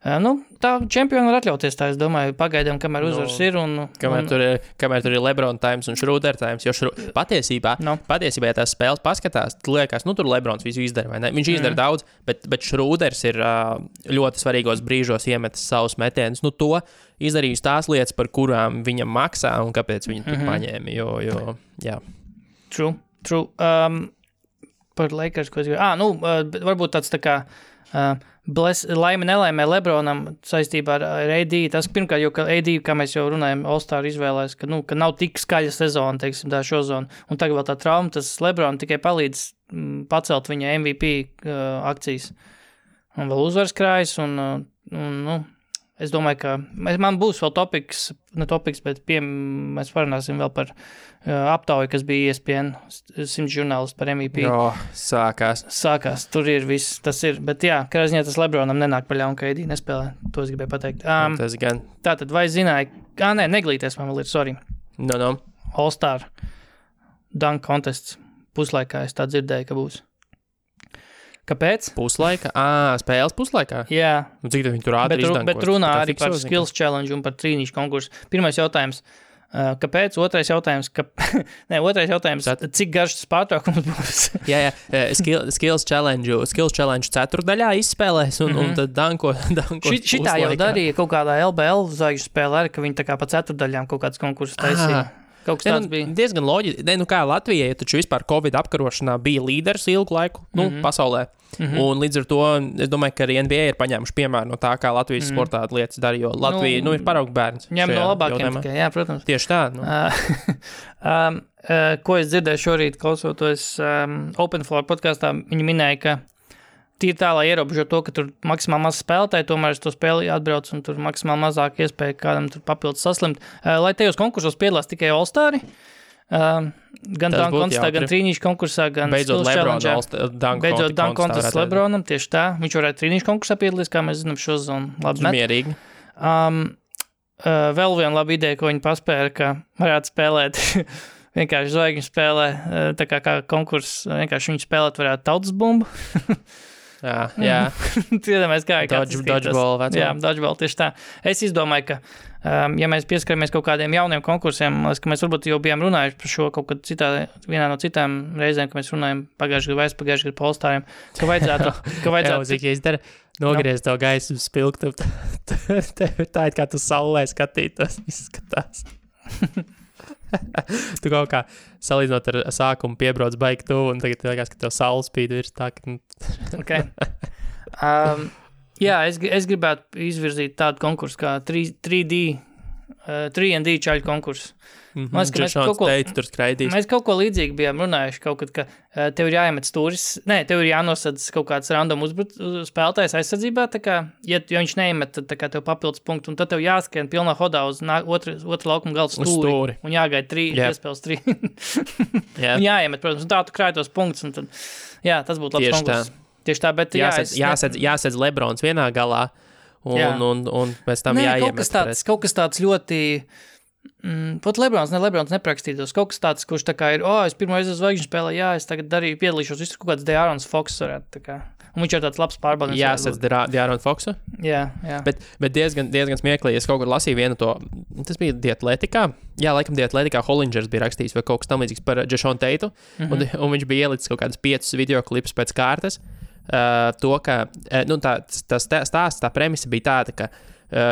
Tā čempioni var atļauties tā, es domāju, pagaidām, kamēr uzvaras ir. Kamēr tur ir LeBron times un Schroeder times, jo patiesībā, ja tās spēles paskatās, liekas, tur Lebrons visu izdara, vai ne? Viņš izdara daudz, bet Schroeders ir ļoti svarīgos brīžos iemetis savus metienus. To izdarījis tās lietas, par kurām viņam maksā un kāpēc viņi tur paņēma, jo, jā. True. Par Lakers, ko es gribēju. Varbūt tāds tā kā... laime nelaimē Lebronam saistībā ar AD. Tas pirmkārt, jo AD, kā mēs jau runājam, All-Star izvēlēs, ka nav tik skaļa sezona, teiksim, tā šozona. Un tagad vēl tā trauma, tas Lebron tikai palīdz pacelt viņa MVP akcijas. Un vēl uzvaras krājas, es domāju, ka man būs vēl bet mēs parunāsim vēl par aptauju, kas bija ESPN 100 žurnālisti par MVP. Sākās, tur ir viss, tas ir, bet jā, kādā ziņā tas Lebronam nenāk pa ļaunu, ka AD nespēlē, to es gribēju pateikt. Tas gan. Tātad, vai zināji, neglīties man vēl ir, sorry. No. All-Star dunk contests puslaikā, es tā dzirdēju, ka būs. Kāpēc? Puslaika? Spēles puslaikā? Jā. Cik tad viņi tur ātri izdankos? Bet runā arī par skills challenge un par trīnīšu konkursu. Pirmais jautājums, kāpēc? Otrais jautājums, cik garš tas pārtraukums būs? jā. Skills challenge ceturdaļā izspēlēs un tad danko Šitā jau darīja kaut kādā LBL zvaigžņu spēlē, arī, ka viņi tā kā pa ceturdaļām kaut kāds konkursus taisīja. Kaut kas tāds bija. Diezgan loģiski. Kā Latvijai, taču vispār Covid apkarošanā bija līderis ilgu laiku pasaulē. Un līdz ar to, es domāju, ka arī NBA ir paņēmuši piemēru no tā, kā Latvijas sportā lietas dara, jo Latvija ir paraugu bērns. Ņem no labākiem tikai, jā, protams. Tieši tā. Ko es dzirdēju šorīt, klausoties Open Floor podkastā, viņi minēja, ka tīri tā, lai ierobežo to, ka tur maksimāli maz spēlētāji, tomēr es to spēli atbrauc un tur maksimāli mazāk iespēja kādam tur papildus saslimt. Lai tajos konkursos piedalās tikai All-Stari, gan dunk kontestā, gan trīnīšu konkursā, gan skills challenge. Beidzot dunk kontests Lebronam, tieši tā. Viņš varētu trīnīšu konkursā piedalīties, kā mēs zinām, šo zonu labi met. Mierīgi. Vēl viena laba ideja, ko viņi paspēra, ka varētu spēlēt vienkārši zvaigžņu spēlē, tā kā konkurss, vienkārši viņi spēlēt varētu tautas bumbu. Jā. Tiedamēs kā Dodgeball. Jā, dodgeball, tieši tā. Es izdomāju, ka, ja mēs pieskaramies kaut kādiem jauniem konkursiem, ka mēs varbūt jau bijām runājuši par šo kaut kad vienā no citām reizēm, ka mēs runājam pagājušajā gadu par All-Stariem, ka vajadzētu... Ja izdara, nogriez to gaisu spilgtu, tev tā ir kā tu saulē skatītos, izskatās. Tu kaut kā salīdzinot ar sākumu piebrauc baigi tuvu, un tagad liekas, ka tev saule spīd virs tā, ka... Okay. Jā, es gribētu izvirzīt tādu konkursu kā 3D čaļu konkursu. Mēs kaut ko līdzīgi bijām runājuši, kaut kad, ka tev ir jāiemet stūris, tev ir jānosadz kaut kāds random spēlētājs aizsardzībā, tā kā, ja viņš neiemet, tad tā kā tev papildus punktu, un tad tev jāskrien pilnā hodā uz otru laukuma galdu stūri, un jāgaida 3, iespēles 3. Un jāiemet, protams, un tā tu krāj tos punktus, un tad, jā, tas būtu labs konkurss. Tieši tā, bet jāsedz Lebrons vienā galā, un pēc tam jāiemet. Kaut kas tāds ļoti... Pat Lebrons neprakstītos. Kaut kas tāds, kurš tā kā ir, es pirmo reizi uz zvaigžņu spēlē, es tagad piedalīšos, viss kaut kāds De'Aaron Fox varētu, tā kā. Un viņš ir tāds labs pārbaudījums. Jāsadz De'Aaron Foxu? Jā. Bet diezgan smieklīgi, es kaut kur lasīju vienu to, tas bija Diatletikā, laikam Diatletikā Hollingers bija rakstījis vai kaut kas tam līdzīgs par Jason Teitu, un viņš bija ielicis kaut kādas 5 videoklipus pēc kārtas, to, ka, tā premisa bija tāda, ka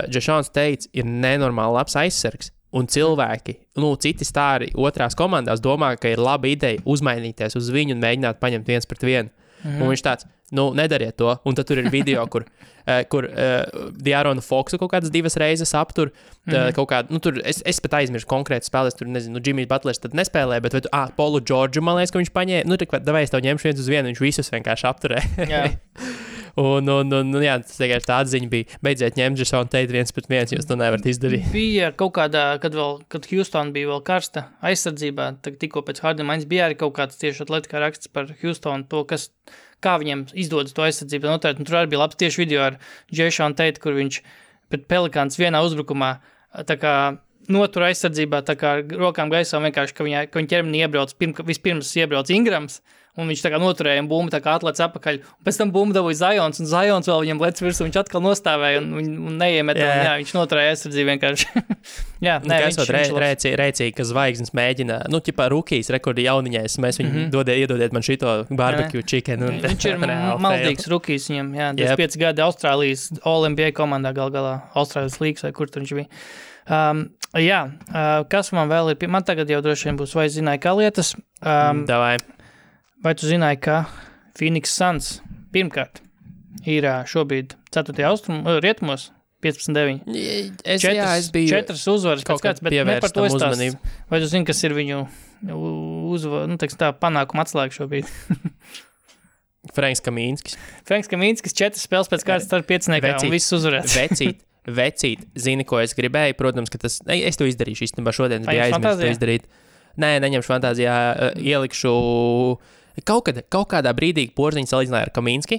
Jasons Teits ir nenormāli labs aizsargs, un cilvēki, citi stāri otrās komandās domā, ka ir laba ideja uzmainīties uz viņu un mēģināt paņemt 1-1. Un viņš tāds, nedariet to. Un tad tur ir video, kur De'Aaron Foxu kaut kādas 2 reizes aptur, kaut kādu, tur es pat aizmirsu konkrēti spēlēs, tur nezinu, Jimmys Butlers tad nespēlē, bet Paulu Georgiu, man liekas, ka viņš paņēma, davai es tev ņemšu 1-1, viņš visus vienkārši apturē. Jā. Un jā, tas vienkārši tā atziņa bija, beidziet ņemt Jasonu Teitu 1-1, jūs to nevarat izdarīt. Bija kaut kādā, kad Houston bija vēl karsta aizsardzībā, tikko pēc Harden maiņas bija arī kaut kāds tieši atletikā raksts par Houston, to, kā viņiem izdodas to aizsardzību noteikt, un tur arī bija labs tieši video ar Jasonu Teitu, kur viņš pret Pelikāns vienā uzbrukumā, tā kā notur aizsardzībā tā kā rokām gaisā vienkārši, ka viņa ķermenī iebrauc, vispirms iebrauc Ingrams, un viņš tā kā noturēja un bumbu tā kā atlec apakaļ, un pēc tam bumbu dabūja Zions, un Zions vēl viņam lec virsū, viņš atkal nostāvēja un neiemet, un viņš noturēja aizsardzību vienkārši. Jā, nē, rēcīgi, ka zvaigznes mēģina, ķipā rukijas rekordi jauniņais, mēs viņu iedodiet man šito barbecue chicken. Viņš ir maldīgs rukijs viņam, 25 gadi Austrālijas All-NBA komandā galā, Austrālijas līgas vai kur tur viņš bija. Kas man vēl ir, man tagad jau droši vien būs, vai zināja, kā lietas. Davai. Vai tu zināji, ka Phoenix Suns pirmkārt ir šobrīd 4. rietumos 15-9? Es biju 4 uzvaras pēc kāds, bet ne par to izstāst. Vai tu zini, kas ir viņu panākuma atslēga šobrīd? Franks Kamīnskis. 4 spēles pēc kāds starp 5 un viss uzvarēts. Vecīt, zini, ko es gribēju? Protams, ka es to izdarīšu īstenībā šodien, bija aizmirst to izdarīt. Nē, neņemšu fantāzijā, ielikšu kaut kādā brīdī Porziņš salīdzināja ar Kamīnski.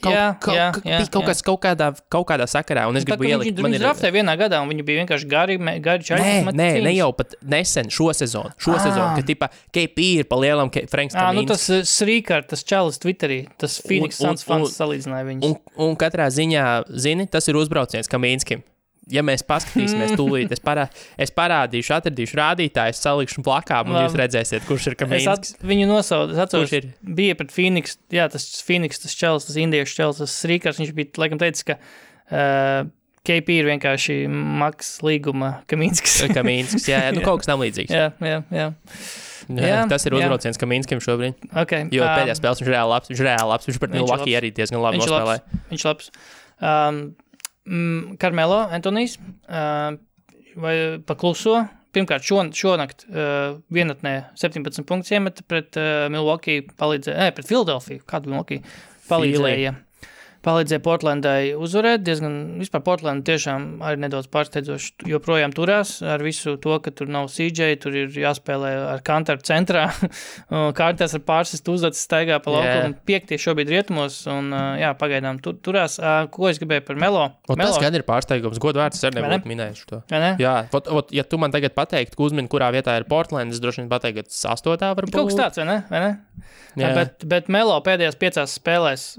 Kaut kādā sakarā, un es gribu ielikt. Viņi draftēja vienā gadā, un viņi bija vienkārši gari čaļi. Ne jau pat nesen, šo sezonu, ka tipa KP ir pa lielam Franks Kamīnski. Tas Srīkārt, tas čalis Twitterī, tas Phoenix Suns fans salīdzināja viņus. Un katrā ziņā, zini, tas ir uzbrauciens Kamīnskim. Ja mēs paskatīsimies tūlīt, es parādīšu, atradīšu rādītājus, salikšu plakā, un jūs redzēsiet, kurš ir Kamīnskis. Viņu nosauc, atceros, bija pret Phoenix, tas Phoenix, tas čels, tas indiešu čels, tas Srīkārs, viņš bija, laikam, teicis, ka KP ir vienkārši maks līguma Kamīnskis. Kamīnskis, kaut kas tam līdzīgs. Jā. Tas ir uzbrauciens Kamīnskim šobrīd. Okay. Jo pēdējā spēles viņš ir reāli labs, viņš pret Milwaukee arī diezgan labi nospēlēja. Viņš labs. Carmelo Antonijs vai pakluso. Pirmkārt, šonakt vienatnē 17 punktus iemeta pret Milwaukee, pret Philadelphia, kādu Milwaukee palīdzēja Portlandai uzvarēt. Diezgan, vispār Portlanda tiešām arī nedaudz pārsteidzoši joprojām turās ar visu to, ka tur nav CJ, tur ir jāspēlē ar Kantaru centrā. Kārtās ar pārsistu uzvedas staigā pa laukumu. 5 šobrīd rietumos un pagaidām turās. Ko es gribēju par Melo? Tas gan ir pārsteigums. Godvārds, es arī nebūtu minējuši to. Jā, ja tu man tagad pateiktu, ka uzmini, kurā vietā ir Portland, es droši vien pateiktu, ka 8. varbūt. Kaut kas tāds, vai ne? Bet Melo pēdējās 5 spēlēs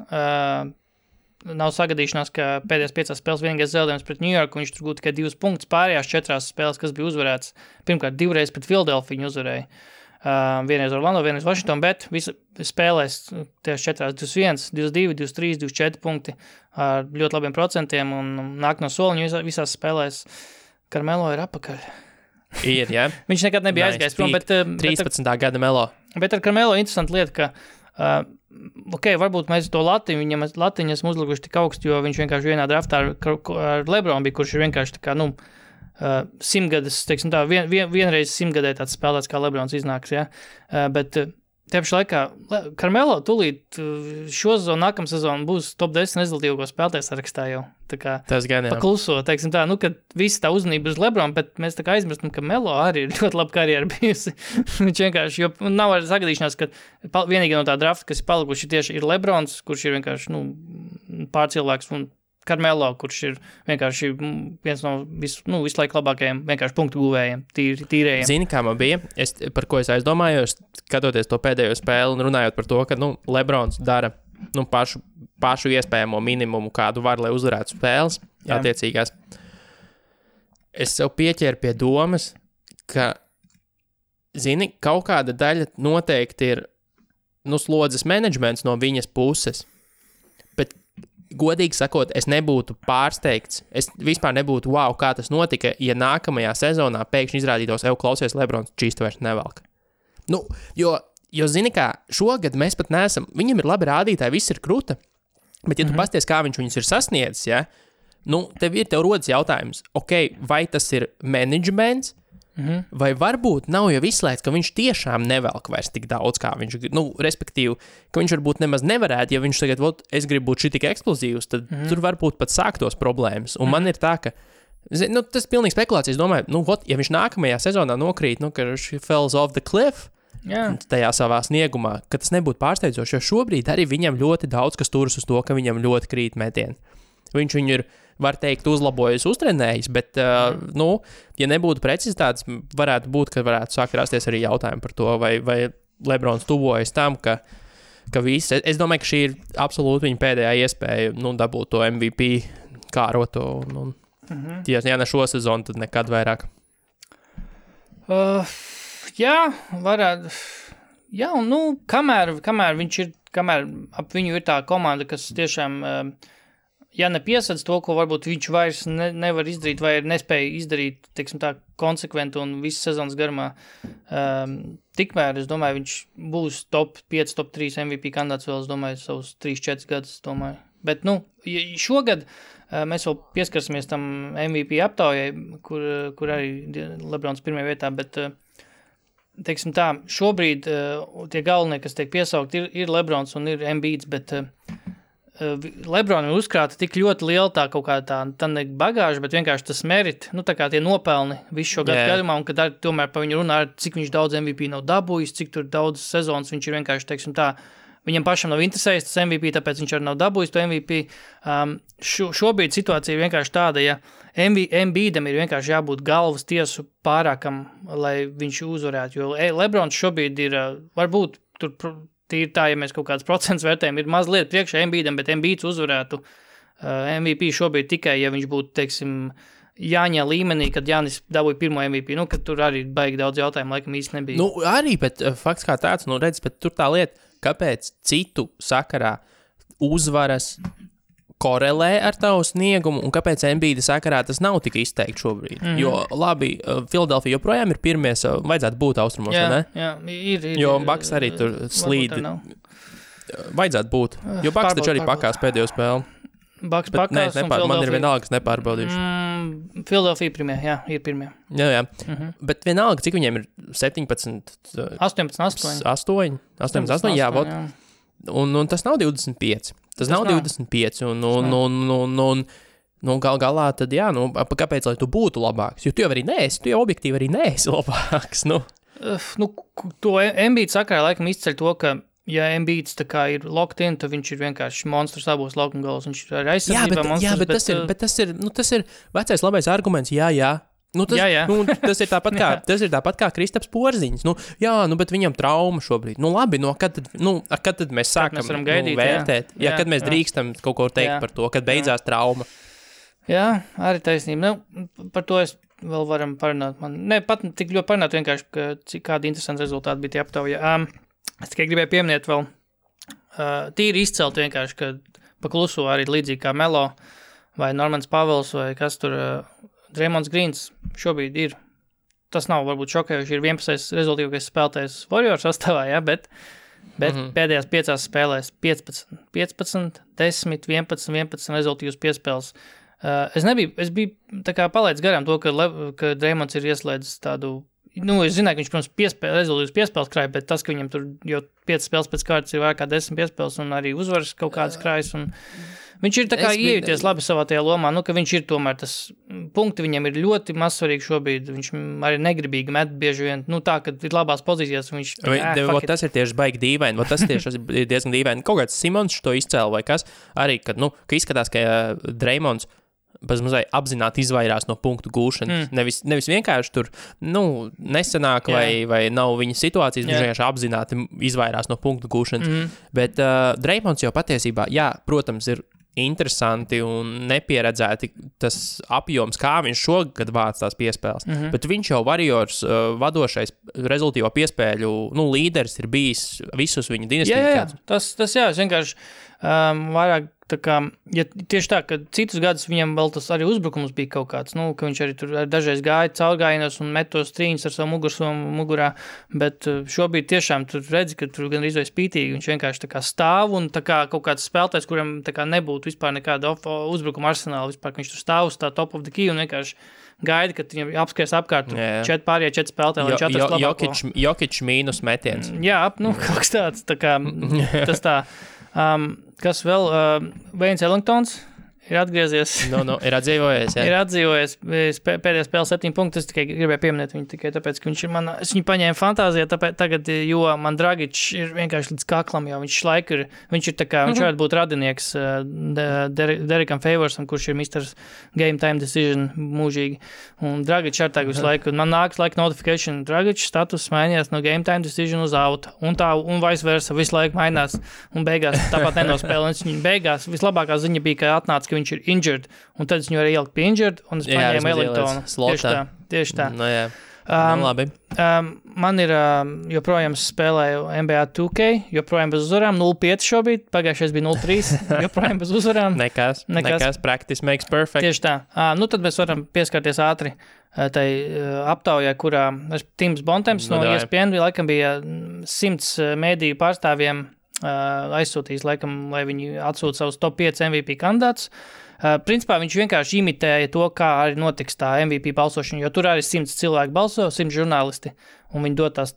nav sagadīšanās, ka pēdējās 5 spēles vienīgais zaudējums pret New York, viņš tur gūta tikai 2 punktus pārējās 4 spēles, kas bija uzvarēts. Pirmkārt, 2 reizes pret Philadelphia viņu uzvarēja. Vienreiz Orlando, vienreiz Washington, bet visi spēlēs tieši 4, 21, 22, 23, 24 punkti ar ļoti labiem procentiem un nāk no soliņu visās spēlēs. Carmelo ir apakaļ. Ir, jā. Viņš nekad nebija aizgājis prom, bet 13. Gada Melo. Bet ar Carmelo interesanti lieta, ka varbūt mēs to latiņu esam uzlikuši tik augstu, jo viņš vienkārši vienā draftā ar LeBron bija, kurš ir vienkārši tā kā, 100 teiksim tā, vienreiz 100 tāds spēlēts, kā LeBrons iznāks, ja? Bet te pašā laikā Carmelo tūlīt šo sezonu, nākamā sezonu būs top 10 rezultīvo spēlētāju sarakstā jau. Tā kā pakluso, teiksim tā, kad visi tā uzmanība uz LeBron, bet mēs tā kā aizmirstam, ka Melo arī ir ļoti laba karjera bijusi. Viņš vienkārši, jo nav arī sagadīšanās, ka vienīgi no tā drafta, kas ir palikuši tieši ir LeBrons, kurš ir vienkārši, pārcilvēks, un Carmelo, kurš ir vienkārši viens no visu laiku labākajiem vienkārši punktu guvējiem, tīrējiem. Zini, kā man bija, par ko es aizdomājos, skatoties to pēdējo spēli un runājot par to, ka Lebrons dara pašu iespējamo minimumu, kādu var, lai uzvarētu spēles, attiecīgās. Es sev pieķēru pie domas, ka, zini, kaut kāda daļa noteikti ir slodzes menedžments no viņas puses, bet godīgi sakot, es nebūtu pārsteigts, es vispār nebūtu, kā tas notika, ja nākamajā sezonā pēkšņi izrādītos, klausies, Lebrons čīstu vairs nevelk. Jo zini kā, šogad mēs pat neesam, viņam ir labi rādītāji, viss ir kruta, bet ja tu pasties, kā viņš viņus ir sasniedzis, ja, tev rodas jautājums, vai tas ir menedžments, vai varbūt nav jau izslēgts, ka viņš tiešām nevelk vairs tik daudz, kā viņš, respektīvi, ka viņš varbūt nemaz nevarētu, ja viņš tagad, es gribu būt šitik eksplozīvs, tad tur varbūt pat sāktos problēmas. Un man ir tā, ka, tas ir pilnīgi spekulācijas, domāju, ja viņš nākamajā sezonā nokrīt, ka viņš falls off the cliff, tajā savā sniegumā, ka tas nebūtu pārsteidzoši, jo šobrīd arī viņam ļoti daudz, kas turas uz to, ka viņam ļoti krīt metieni. Viņš viņu ir var teikt, uzlabojas, uztrenējis, bet, ja nebūtu precizitātes, varētu būt, ka varētu sākt rasties arī jautājumi par to, vai Lebrons tuvojas tam, ka viss, es domāju, ka šī ir absolūti viņa pēdējā iespēja, dabūt to MVP kāroto, ja ne šo sezonu, tad nekad vairāk. Jā, varētu. Jā, un kamēr ap viņu ir tā komanda, kas tiešām, ja nepiesadz to, ko varbūt viņš vairs nevar izdarīt, vai nespēja izdarīt, teiksim tā, konsekventi un visas sezonas garumā, tikmēr, es domāju, viņš būs top 5, top 3 MVP kandidāts vēl, es domāju, savus 3-4 gadus, domāju. Bet, šogad mēs vēl pieskarsimies tam MVP aptaujai, kur arī Lebrons pirmajā vietā, bet teiksim tā, šobrīd tie galvenie, kas tiek piesaukt, ir Lebrons un ir Embiids, bet Lebronam ir uzkrāta tik ļoti liela tā kaut kā tā ne bagāža, bet vienkārši tas merit, tā kā tie nopelni visu šo gadu gadumā, un kad tomēr pa viņu runā, cik viņš daudz MVP nav dabūjis, cik tur daudz sezonas viņš ir vienkārši, teiksim tā, viņam pašam nav interesējis tas MVP, tāpēc viņš arī nav dabūjis to MVP. Šobrīd situācija ir vienkārši tāda, ja Embiidam ir vienkārši jābūt galvas tiesu pārākam, lai viņš uzvarētu, jo Lebrons šobrīd ir, varbūt tur tīri tā, ja mēs kaut kāds procents vērtējam, ir mazliet priekšā Embiidam, bet Embiids uzvarētu MVP šobrīd tikai, ja viņš būtu, teiksim, Jāņa līmenī, kad Jānis dabūja pirmo MVP, kad tur arī baigi daudz jautājumu, laikam īsti nebija. Arī, bet fakts kā tāds, redz, bet tur tā lieta, kāpēc citu sakarā uzvaras korelē ar tavu sniegumu un kāpēc Embiida sakarā tas nav tik izteikti šobrīd. Jo, labi, Filadelfija joprojām ir pirmie, vajadzētu būt austrumos, ne? Jā, ir. Jo Bucks arī tur slīd. Vajadzētu būt, jo Bucks taču arī pakās pēdējo spēli. Bucks pakās un man ir vienalga, kas nepārbaudīšu. Filadelfija pirmie, jā, ir pirmie. Jā. Bet vienalga, cik viņiem ir 17? 18, 8, jā, vot. Un tas nav 25. Tas nav 25, un galā tad, jā, kāpēc, lai tu būtu labāks? Jo tu jau arī neesi, tu jau objektīvi arī neesi labāks, To Embiid sakarā laikam izceļ to, ka ja Embiids tā kā ir locked in, tad viņš ir vienkārši monstrs abos laukuma galos, viņš ir aizsardzībā monstrs. Jā, bet tas ir vecais labais arguments, jā. Tas ir tāpat kā Kristaps Porziņš. Bet viņam trauma šobrīd. Labi, kad tad mēs sākam vērtēt? Kad mēs drīkstam kaut ko teikt par to, kad beidzās trauma? Jā, arī taisnība. Par to es vēl varam parunāt. Pat tik ļoti parunāt vienkārši, kādi interesanti rezultāti bija tie aptauja. Es tikai gribēju pieminēt vēl tīri izcelt vienkārši, ka pa kluso arī līdzīgi kā Melo vai Normans Pavels vai kas tur Draymonds Greens šobrīd ir. Tas nav varbūt šokējuši, ir 11. rezultīvākais spēlētājs Warriors sastāvā, bet pēdējās 5 spēlēs 15, 10, 11 rezultīvas piespēles. Es biju tā kā palaidis garām to, ka Draymonds ir ieslēdzis tādu, es zināju, ka viņš, protams, rezultīvas piespēles krāja, bet tas, ka viņam tur jau 5 spēles pēc kārtas ir vairāk kā 10 piespēles un arī uzvaras kaut kādas krājas un viņš ir tā kā iejūties labi savā tajā lomā, ka viņš ir tomēr tas punkti viņam ir ļoti mazsvarīgi šobrīd, viņš arī negribīgi met bieži vien, tā, kad ir labās pozīcijās, un viņš... Tas ir tieši baigi dīvaini, tas tieši ir diezgan dīvaini. Kaut kāds Simons to izcēla vai kas, arī, kad, ka izskatās, ka Draymonds mazliet apzināti izvairās no punktu gūšanas. Nevis vienkārši tur, nesanāk vai nav viņa situācijas, viņš vienkārši apzināti izvairās no punktu gūšanas. Bet Draymonds jau patiesībā, protams, ir interesanti un nepieredzēti tas apjoms, kā viņš šogad vāc tās piespēles. Bet viņš jau Warriors vadošais rezultīvo piespēļu līderis ir bijis visus viņa dinastiju. Tas es vienkārši vairāk tā kā, ja tieši tā, ka citus gadus viņam vēl tas arī uzbrukums bija kaut kāds, ka viņš arī tur dažreiz gāja caurgājienos un met tos trīņus ar savu mugursomu mugurā, bet šobrīd tiešām tur redzi, ka tur gan izvēj spītīgi, viņš vienkārši tā kā stāv un tā kā kaut kāds spēlētājs, kuram tā kā nebūtu vispār nekāda uzbrukuma arsenāla, vispār, ka viņš tur stāv uz tā top of the key un vienkārši gaida, kad viņam apskries apkārt 4 spēlētāji, lai 4 labāko. Jokic mīnus metiens. Jā, kaut kas tāds, tā kā tas tā. Kas vēl? Waynes Ellingtons ir atgriezies. Ir atdzīvojies, jā. Ir atdzīvojies. Pēdējā spēlē 7 punktus. Es tikai gribēju pieminēt viņu tikai tāpēc, ka viņš ir es viņu paņēmu fantāzijā tagad, jo man Dragič ir vienkārši līdz kaklam, jo viņš ir tā kā, viņš varētu būt radinieks Derekam Favorsam, kurš ir Mr. Game Time Decision mūžīgi. Un Dragič ar tagad visu laiku. Man nāks notification. Dragič status mainījās no Game Time Decision uz out. Un vice versa visu laiku mainās. Un beigās tāpat nenospēlē. Viņa beigās vislabākā ziņa bija, ka atnāca, ka viņš ir injured. Un tad es viņu arī ieliku pie injured. Un es paņēmu Ellingtonu. Tieši tā. No, jā. Labi. Man ir joprojām spēlēju NBA 2K, joprojām bez uzvarām, 0-5 šobrīd, pagājušais bija 0-3, joprojām bez uzvarām. Nekas, practice makes perfect. Tieši tā. Tad mēs varam pieskarties ātri tai aptaujā, kurā Tims Bontemps no ESPN laikam bija 100 mēdīju pārstāvjiem aizsūtījis, laikam, lai viņi atsūta savus top 5 MVP kandidātus. Principā viņš vienkārši imitēja to, kā arī notiks tā MVP balsošana, jo tur arī 100 cilvēki balso, 100 žurnālisti, un viņi dod tās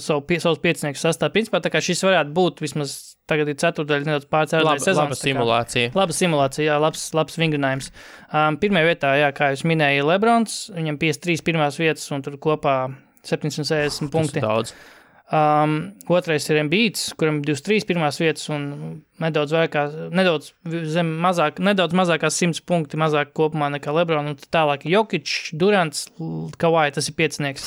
savus pieciniekus sastāv. Principā tā kā šis varētu būt vismaz tagad ir ceturtdaļa nedaudz pārcēlēja sezonas. Laba simulācija. Laba simulācija, jā, labs vingrinājums. Pirmajā vietā, jā, kā jūs minēja, ir Lebrons, viņam 53 pirmās vietas, un tur kopā 760 punkti. Tas daudz. Otrais ir Embiids, kuram 23 pirmās vietas un nedaudz mazākās 100 punkti mazāk kopumā nekā Lebron, un tālāk Jokic, Durants, Kawhi, tas ir piecinieks.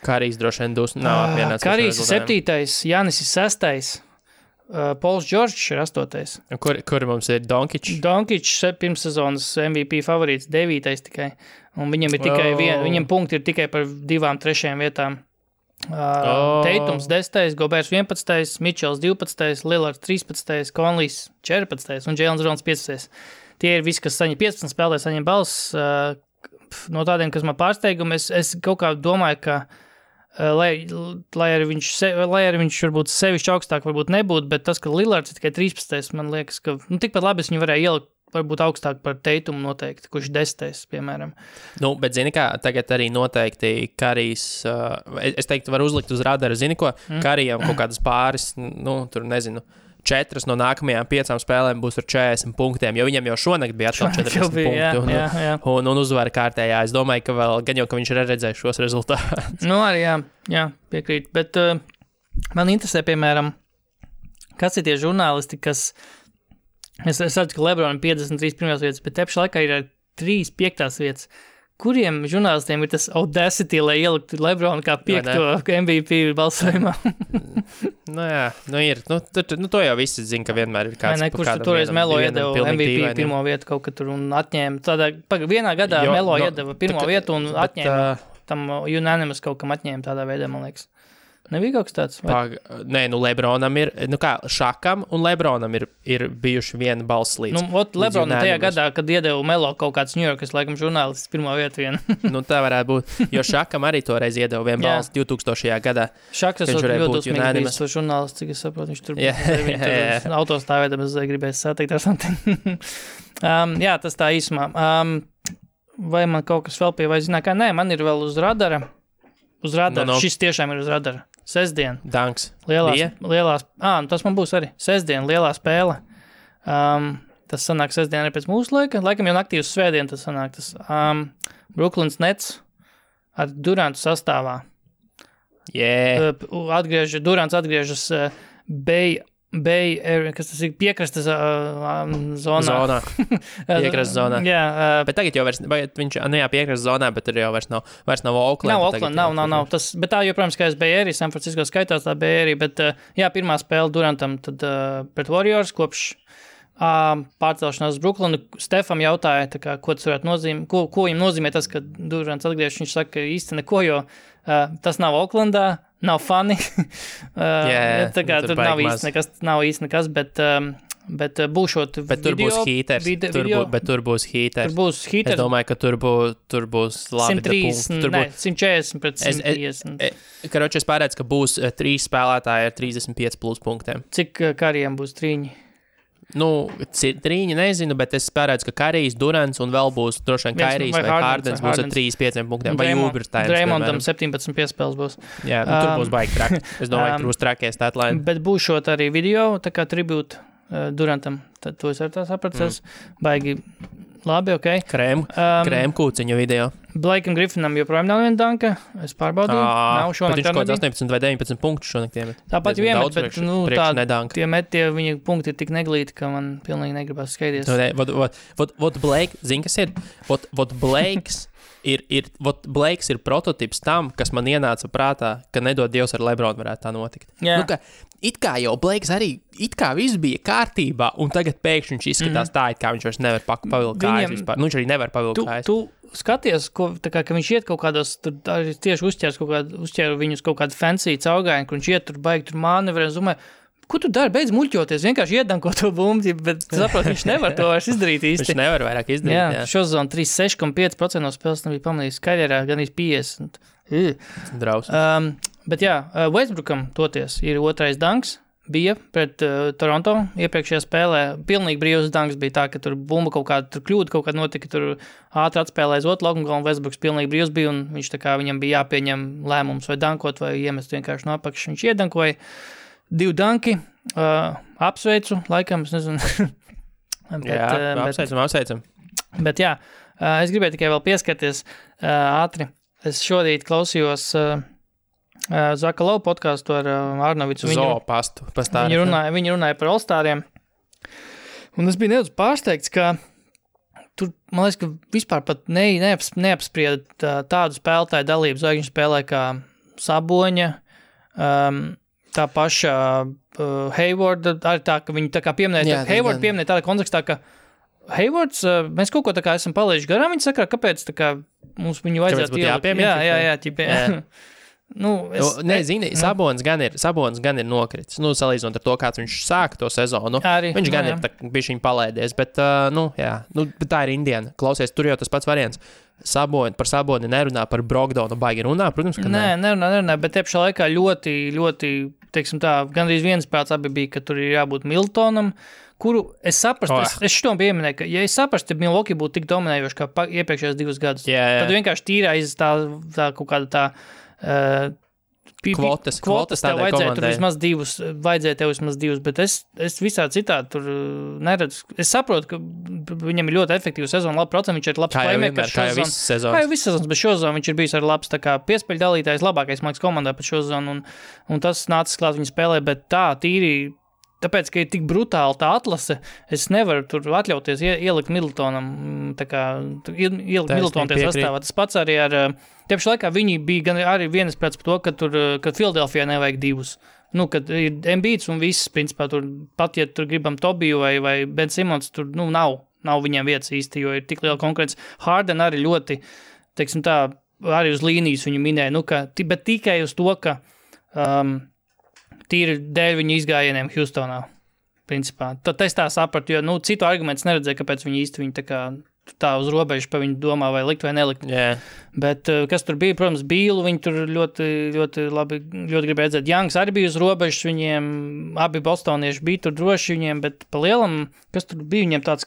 Karijs droši vien nav apvienots. Karijs ir 7. Janis ir 6. Pauls Džordžs ir 8. Kur mums ir Donkič? Donkič pirms sezonas MVP favorīts 9. tikai, un viņam ir tikai viņam punkti ir tikai par 2-3 vietām. Teitums 10, Gobers 11, Mitchells 12, Lillards 13, Conleys 14 un Jaylen Browns 15. Tie ir visi, kas saņem 15 spēlē, saņem balss. No tādiem, kas man pārsteigumi, es kaut kā domāju, ka lai arī viņš varbūt sevišķi augstāk varbūt nebūtu, bet tas, ka Lillards ir tikai 13, man liekas, ka tikpat labi es viņu varēju ielikt varbūt augstāk par Teitumu noteikti, kurš 10, piemēram. Bet zini kā, tagad arī noteikti Karijs, es teiktu, var uzlikt uz radara, zini ko, Karijam kaut kādas pāris, tur nezinu, 4 no nākamajām 5 spēlēm būs ar 40 punktiem, jo viņam jau šonakt bija atkal 40 punkti un uzvara kārtējā. Es domāju, ka vēl gan jau, ka viņš ir redzējis šos rezultātus. Arī jā, piekrīt, bet man interesē, piemēram, kas ir tie žurnālisti, kas Es redzu, ka Lebronam 53 pirmās vietas, bet tepši laikā ir 3 5. vietas. Kuriem žurnālistiem ir tas audacity, lai ieliktu Lebronu kā 5. MVP balsojumā? Ir. To jau visi zina, ka vienmēr ir kāds. Kurš toreiz Melo iedeva MVP pirmo vietu kaut kad tur un atņēma. Vienā gadā Melo iedeva pirmo vietu un atņēma tam unanimous kaut kam atņēma tādā veidā, man liekas. Nebija kaut kas tāds? Nē, Lebronam ir, Šakam un Lebronam ir bijuši viena balss līdz. Lebronam tajā gadā, kad iedeva Melo kaut kāds New Yorkas, laikam, žurnālists pirmo vietu vienu. Tā varētu būt, jo Šakam arī toreiz iedeva vienu balss 2000. gadā. Šaks esot ļoti uzmīgbijis to žurnālists, cik es saprotu, viņš tur autostāvēdam, es gribēju sateikt ar something. Jā, tas tā īsumā. Vai man kaut kas vēl pie vai zinā, kā? Nē, man ir vēl uz radara. Uz radara. Šis tiešām ir uz radara. Sestdien. Danks. Lielās, tas man būs arī. Sestdien, lielā spēle. Tas sanāk sestdien arī pēc mūsu laika. Laikam jau naktī uz svētdien tas sanāk. Brooklyns Nets ar Durantu sastāvā. Durants atgriežas Bay area, kas tas ir piekrastes zonā. Piekrastes zonā. Jā. Bet tagad jau viņš, piekrastes zonā, bet tur jau vairs nav Oakland. Nav Oakland, nav. Bet tā joprojām skaitās Bay area, San Francisco skaitās tā Bay area, bet pirmā spēle Durantam tad pret Warriors kopš pārcelšanās uz Brooklynu. Stefam jautāja, ko tas varētu nozīmēt, ko viņam nozīmē tas, ka Durants atgriežas. Viņš saka, ka īsti neko, jo tas nav Oaklandā, nav funny. Tur nav īsti nekas, bet būšot bet tur video, būs heaters. Bet tur būs heaters. Es domāju, ka tur būs labi 140 pret 150. Es pārēdzu, ka būs 3 spēlētāji ar 35 plus punktiem. Cik Karijam būs trīņi? Trīņi nezinu, bet es pārēdzu, ka Karijs, Durants un vēl būs droši vien Kairijs vai Hardens būs ar 35 punktiem. Vai Ubersteins. Draymondam 17 piespēles būs. Jā, tur būs baigi traki. Es domāju, ka tur būs trakie statline. Bet būšot arī video, tā kā tribūta Durantam. Tad to es ar tā sapratos. Baigi labi, ok. Krēm kūciņu video. Blakeam Griffinam joprojām nav viena danka. Es pārbaudīju. Nav šonakt. Viņš kaut 18 vai 19 punktus šonakt iemet. Tāpat jau iemet, bet tie viņa punkti ir tik neglīti, ka man pilnīgi negribas skaidrs. Vot Blake, zini, kas ir? Vot Blakes ir prototips tam, kas man ienāca prātā, ka nedod Dievs ar Lebronu varētu tā notikt. Yeah. It kā jau Blakes arī, it kā viss bija kārtībā, un tagad pēkšņi viņš izskatās tā, it kā viņš vairs nevar pavilkt kājas vispār. Viņš arī nevar pavilkt kājas. Tu skaties, ka viņš iet kaut kādos, tur tieši uzķēru viņus kaut kādu fancy caugājienu, kur viņš iet tur baigi tur manevrē, un domāju, ko tu dari? Beidz muļķoties, vienkārši iedanko to bumbu, bet saprot, viņš nevar to vairs izdarīt īsti. Viņš nevar vairāk izdarīt, jā. Šo zonu 36,5% no spēles nebija pamanījis karjerā, gan 50. Draus. Bet jā, Westbrookam toties ir otrais danks, bija pret Toronto iepriekšējā spēlē. Pilnīgi brīvs danks bija tā, ka tur bumba kaut kāda kļūda, kaut kāda notika, tur ātri atspēlē uz otru laukumu, un Westbrooks pilnīgi brīvs bija, un viņš tā kā viņam bija jāpieņem lēmums vai dankot, vai iemest vienkārši no apakšas. Viņš iedankoja 2 danki, apsveicu, laikam, es nezinu. Apsveicam. Bet jā, es gribēju tikai vēl pieskarties ātri. Es šodien klausījos Zaka Lau podcastu ar Arnovicu. Zoopastu. Viņi runāja par All-Stariem. Un es biju nedaudz pārsteigts, ka tur, man liekas, ka vispār pat neapsprieda tādu spēlētāju dalību zvaigžņu spēlē kā Saboņa, tā paša Haywarda, arī tā, ka viņi tā kā pieminēja, Hayward pieminēja tādā kontekstā, ka Haywards, mēs kaut ko tā kā esam palaiduši garām, viņi saka, kāpēc tā kā mums viņu vajadzētu ielikt. Jā. Zini, Sabonis gan ir nokritis. Salīdzinot ar to, kāds viņš sāka to sezonu. Viņš gan ir bišķiņ palaidies, bet tā ir Indiana. Klausies, tur jau tas pats variants. Par Saboni nerunā, par Brogdonu baigi runā, protams, ka nē. Nerunā, bet te pašā laikā ļoti, teiksim tā, gandrīz viens prāts abi bija, ka tur ir jābūt Miltonam, kuru es saprastu, es šitom pieminēju, ka ja es saprastu, ja Milwaukee būtu tik dominējoši kā iepriekšējos 2 gadus, tad vienkārši tīrā aiz tā kaut kāda tā kvotas tev vajadzēja tur vismaz 2, bet es visā citādi tur neredzu. Es saprotu, ka viņam ir ļoti efektīva sezona, labi procents, viņš ir labs playmakers. Kā jau viss sezonas. Kā jau viss sezonas, bet šo zonu viņš ir bijis ar labs tā kā piespēļu dalītājs, labākais māks komandā pat šo zonu, un tas nācis klāt viņa spēlē, bet tā tīri, tāpēc, ka ir tik brutāli tā atlase, es nevaru tur atļauties ielikt Middletonam, tā kā ielikt Middletonu tie sastāvā. Tas pats arī ar, tieši laikā viņi bija gan arī vienas pēc par to, ka Philadelphia nevajag 2. Kad ir Embiids un viss, principā, tur pat, ja tur gribam Tobiju vai Ben Simons, tur, nav viņiem vietas īsti, jo ir tik liela konkurence. Harden arī ļoti, teiksim tā, arī uz līnijas viņu minēja, bet tikai uz to, ka tīri dēļ viņu izgājieniem Houstonā, principā. Tad es tā sapratu, jo, citu argumentus neredzēju, kāpēc viņi īsti viņu tā uz robežu pa viņu domā vai likt vai nelikt. Yeah. Bet kas tur bija, protams, Bīlu, viņi tur ļoti, ļoti labi, ļoti gribēja redzēt. Youngs arī bija uz robežas, viņiem abi bostonieši bija tur droši viņiem, bet pa lielam, kas tur bija viņiem tāds,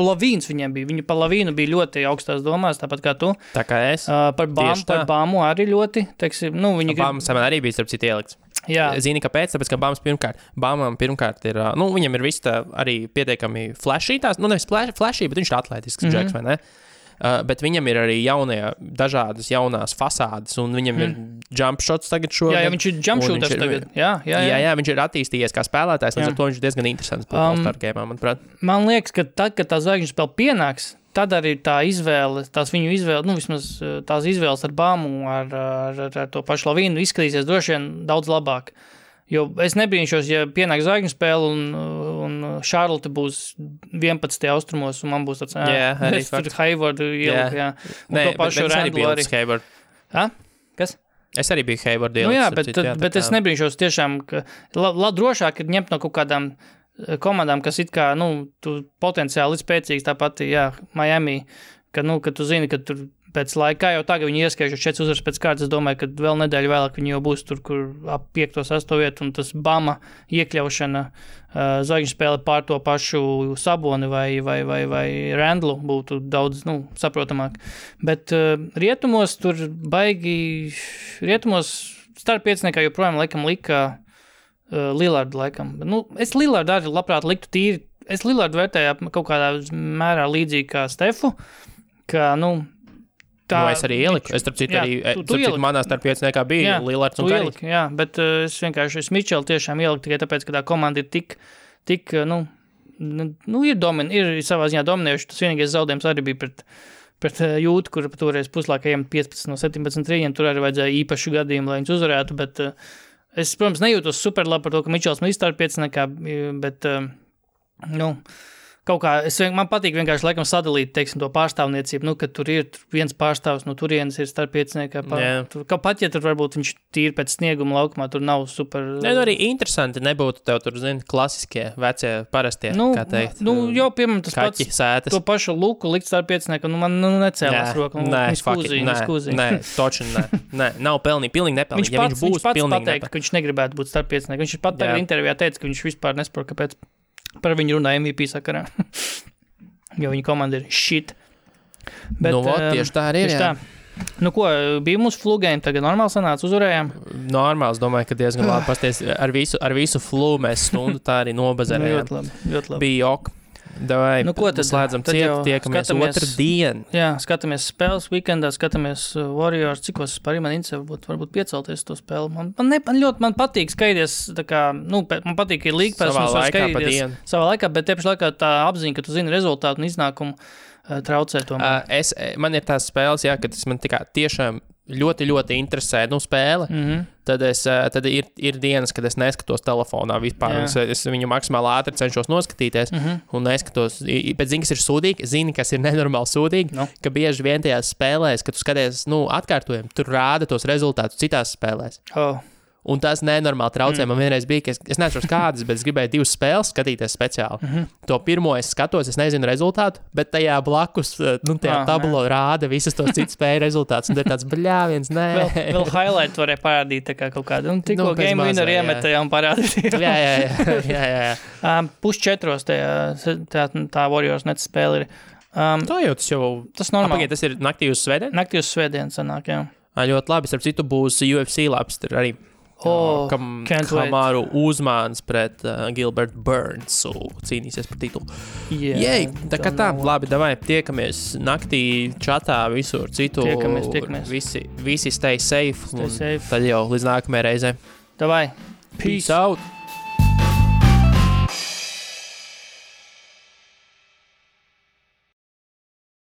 Lavīns viņiem bija. Viņi pa Lavīnu bija ļoti augstās domās, tāpat kā tu. Tā kā es. Par Bāmu arī ļoti, teiksim, Bāmas man arī bija starp citu ielikts. Jā. Zini, kāpēc? Tāpēc, ka Bāmam pirmkārt ir, viņam ir viss tā arī pietiekami flashy tās, nevis flashy, bet viņš ir atletisks džeks, vai ne? Bet viņam ir arī dažādas jaunās fasādes, un viņam ir jump shots tagad šogad. Jā, viņš ir jump shooters tagad. Jā, viņš ir attīstījies kā spēlētājs, līdz ar to viņš ir diezgan interesants All-Star game, manuprāt. Man liekas, ka tad, kad tā zvaigžņu spēle pienāks, tad arī tā izvēle, viņu izvēle, vismaz tās izvēles ar Bāmu, ar to pašu Lavīnu izskatīsies droši vien daudz labāk. Jo es nebrīnšos, ja pienāk zvaigžņu spēle un Charlotte būs 11. austrumos, un man būs tāds, es tur Haywardu ieliku, jā. Un to pašu Randlu arī. Kas? Es arī biju Haywardu ieliku. Bet es nebrīnšos tiešām, ka drošāk ir ņemt no kaut kādām komandām, kas it kā, tu potenciāli spēcīgs, tāpat, Miami, ka tu zini, ka tur pēc laika, jau tagad viņi ieskaižu 4 uzvaras pēc kārtas, es domāju, ka vēl nedēļu vēlāk viņi jau būs tur, kur ap 5. 8. vietu, un tas Bama iekļaušana zvaigžņu spēle pār to pašu Saboni vai Randlu būtu daudz, saprotamāk. Bet rietumos tur rietumos starp pieciniekā joprojām laikam lika Lillardu laikam. Nu, es Lillardu arī labprāt liktu tīri. Es Lillardu vērtēju kaut kādā mērā līdzīgi kā Stefu, ka, es arī ieliku. Es, starp citu, arī manā starpvietniekā bija Lillards un Karīs. Jā, bet es vienkārši Mičelu tiešām ieliku tikai tāpēc, ka tā komanda ir tik ir savā ziņā dominējuši. Tas vienīgais zaudējums arī bija pret Jūtu, kur toreiz puslaikajiem 15 no 17 trījiem. Tur arī vajadzēja īpašu gadījumu, lai viņus uzvarētu, bet es, protams, nejūtos super labi par to, ka Mičels man starpvietniekā, bet, kaut kā, man patīk vienkārši laikam sadalīt, teiksim, to pārstāvniecību, ka tur ir viens pārstāvs no turienes ir starpvietniekā. Pat, ja tur varbūt viņš tīri pēc snieguma laukumā, tur nav super... arī interesanti nebūtu tev tur, klasiskie, vecie, parastie, kā teikt. Piemēram, tas kaķi, pats, sētas. To pašu luku likt starpvietniekā, man necēlās roku. Nē, toči, nē, nav pilnīgi nepelnīgi. Viņš pats pateikt, ka viņš negribētu būt starpvietniekā. Viņš pat tagad intervijā teica, ka viņš vispār nesaprot, kāpēc par viņu runā MVP sakarā. Jo viņa komanda ir shit. Bet, tieši tā arī ir, jā. Bija mūsu flugēm, tagad normāli sanāca, uzvarējām? Normāls, domāju, ka diezgan labi pasties. Ar visu flu mēs stundu tā arī nobazarējām. Ļoti labi. Bija ok. Davai, tad slēdzam ciet, tiekamies otrdien. Jā, skatāmies spēles weekendā, skatāmies Warriors, cikos arī man interesē, varbūt piecelties to spēli. Man patīk skaidrs, man patīk, ka ir League Pass, mums var skaidrs savā laikā, bet tieši laikā tā apziņa, ka tu zini rezultātu un iznākumu traucē tomēr. Man ir tās spēles, jā, ka tas man tiešām ļoti, ļoti interesē, spēle, tad ir dienas, kad es neskatos telefonā vispār. Es viņu maksimāli ātri cenšos noskatīties un neskatos. Pēc zini, kas ir sūdīgi, kas ir nenormāli sūdīgi, ka bieži vien tajās spēlēs, kad tu skaties, atkārtojumi, tur rāda tos rezultātus citās spēlēs. Un tas nenormāli traucē. Man vienreiz bija, ka es neatceros kādas, bet es gribēju 2 spēles skatīties speciāli. To pirmo es skatos, es nezinu rezultātu, bet tajā blakus, tajā tablo rāda visas tos citas spēju rezultātus. Un te tāds bļāviens, nē. Vēl highlight varēja parādīt tā kā kaut kādu. Tikko game winner iemetējā un parādīt. Jā. 3:30 tā Warriors net spēle ir. Tā jau tas normāli. Tas ir naktī uz svētdienu? Naktī uz svētdienu sanāk, jā. Ļoti labi. Starp citu būs UFC labs tur arī. Kamaru Uzmāns pret Gilbert Burnsu cīnīsies par titulu. Jej, tā kā tā, labi, davai, tiekamies naktī čatā visur citu. Tiekamies. Visi stay safe. Tad jau līdz nākamajai reizei. Davai. Peace out.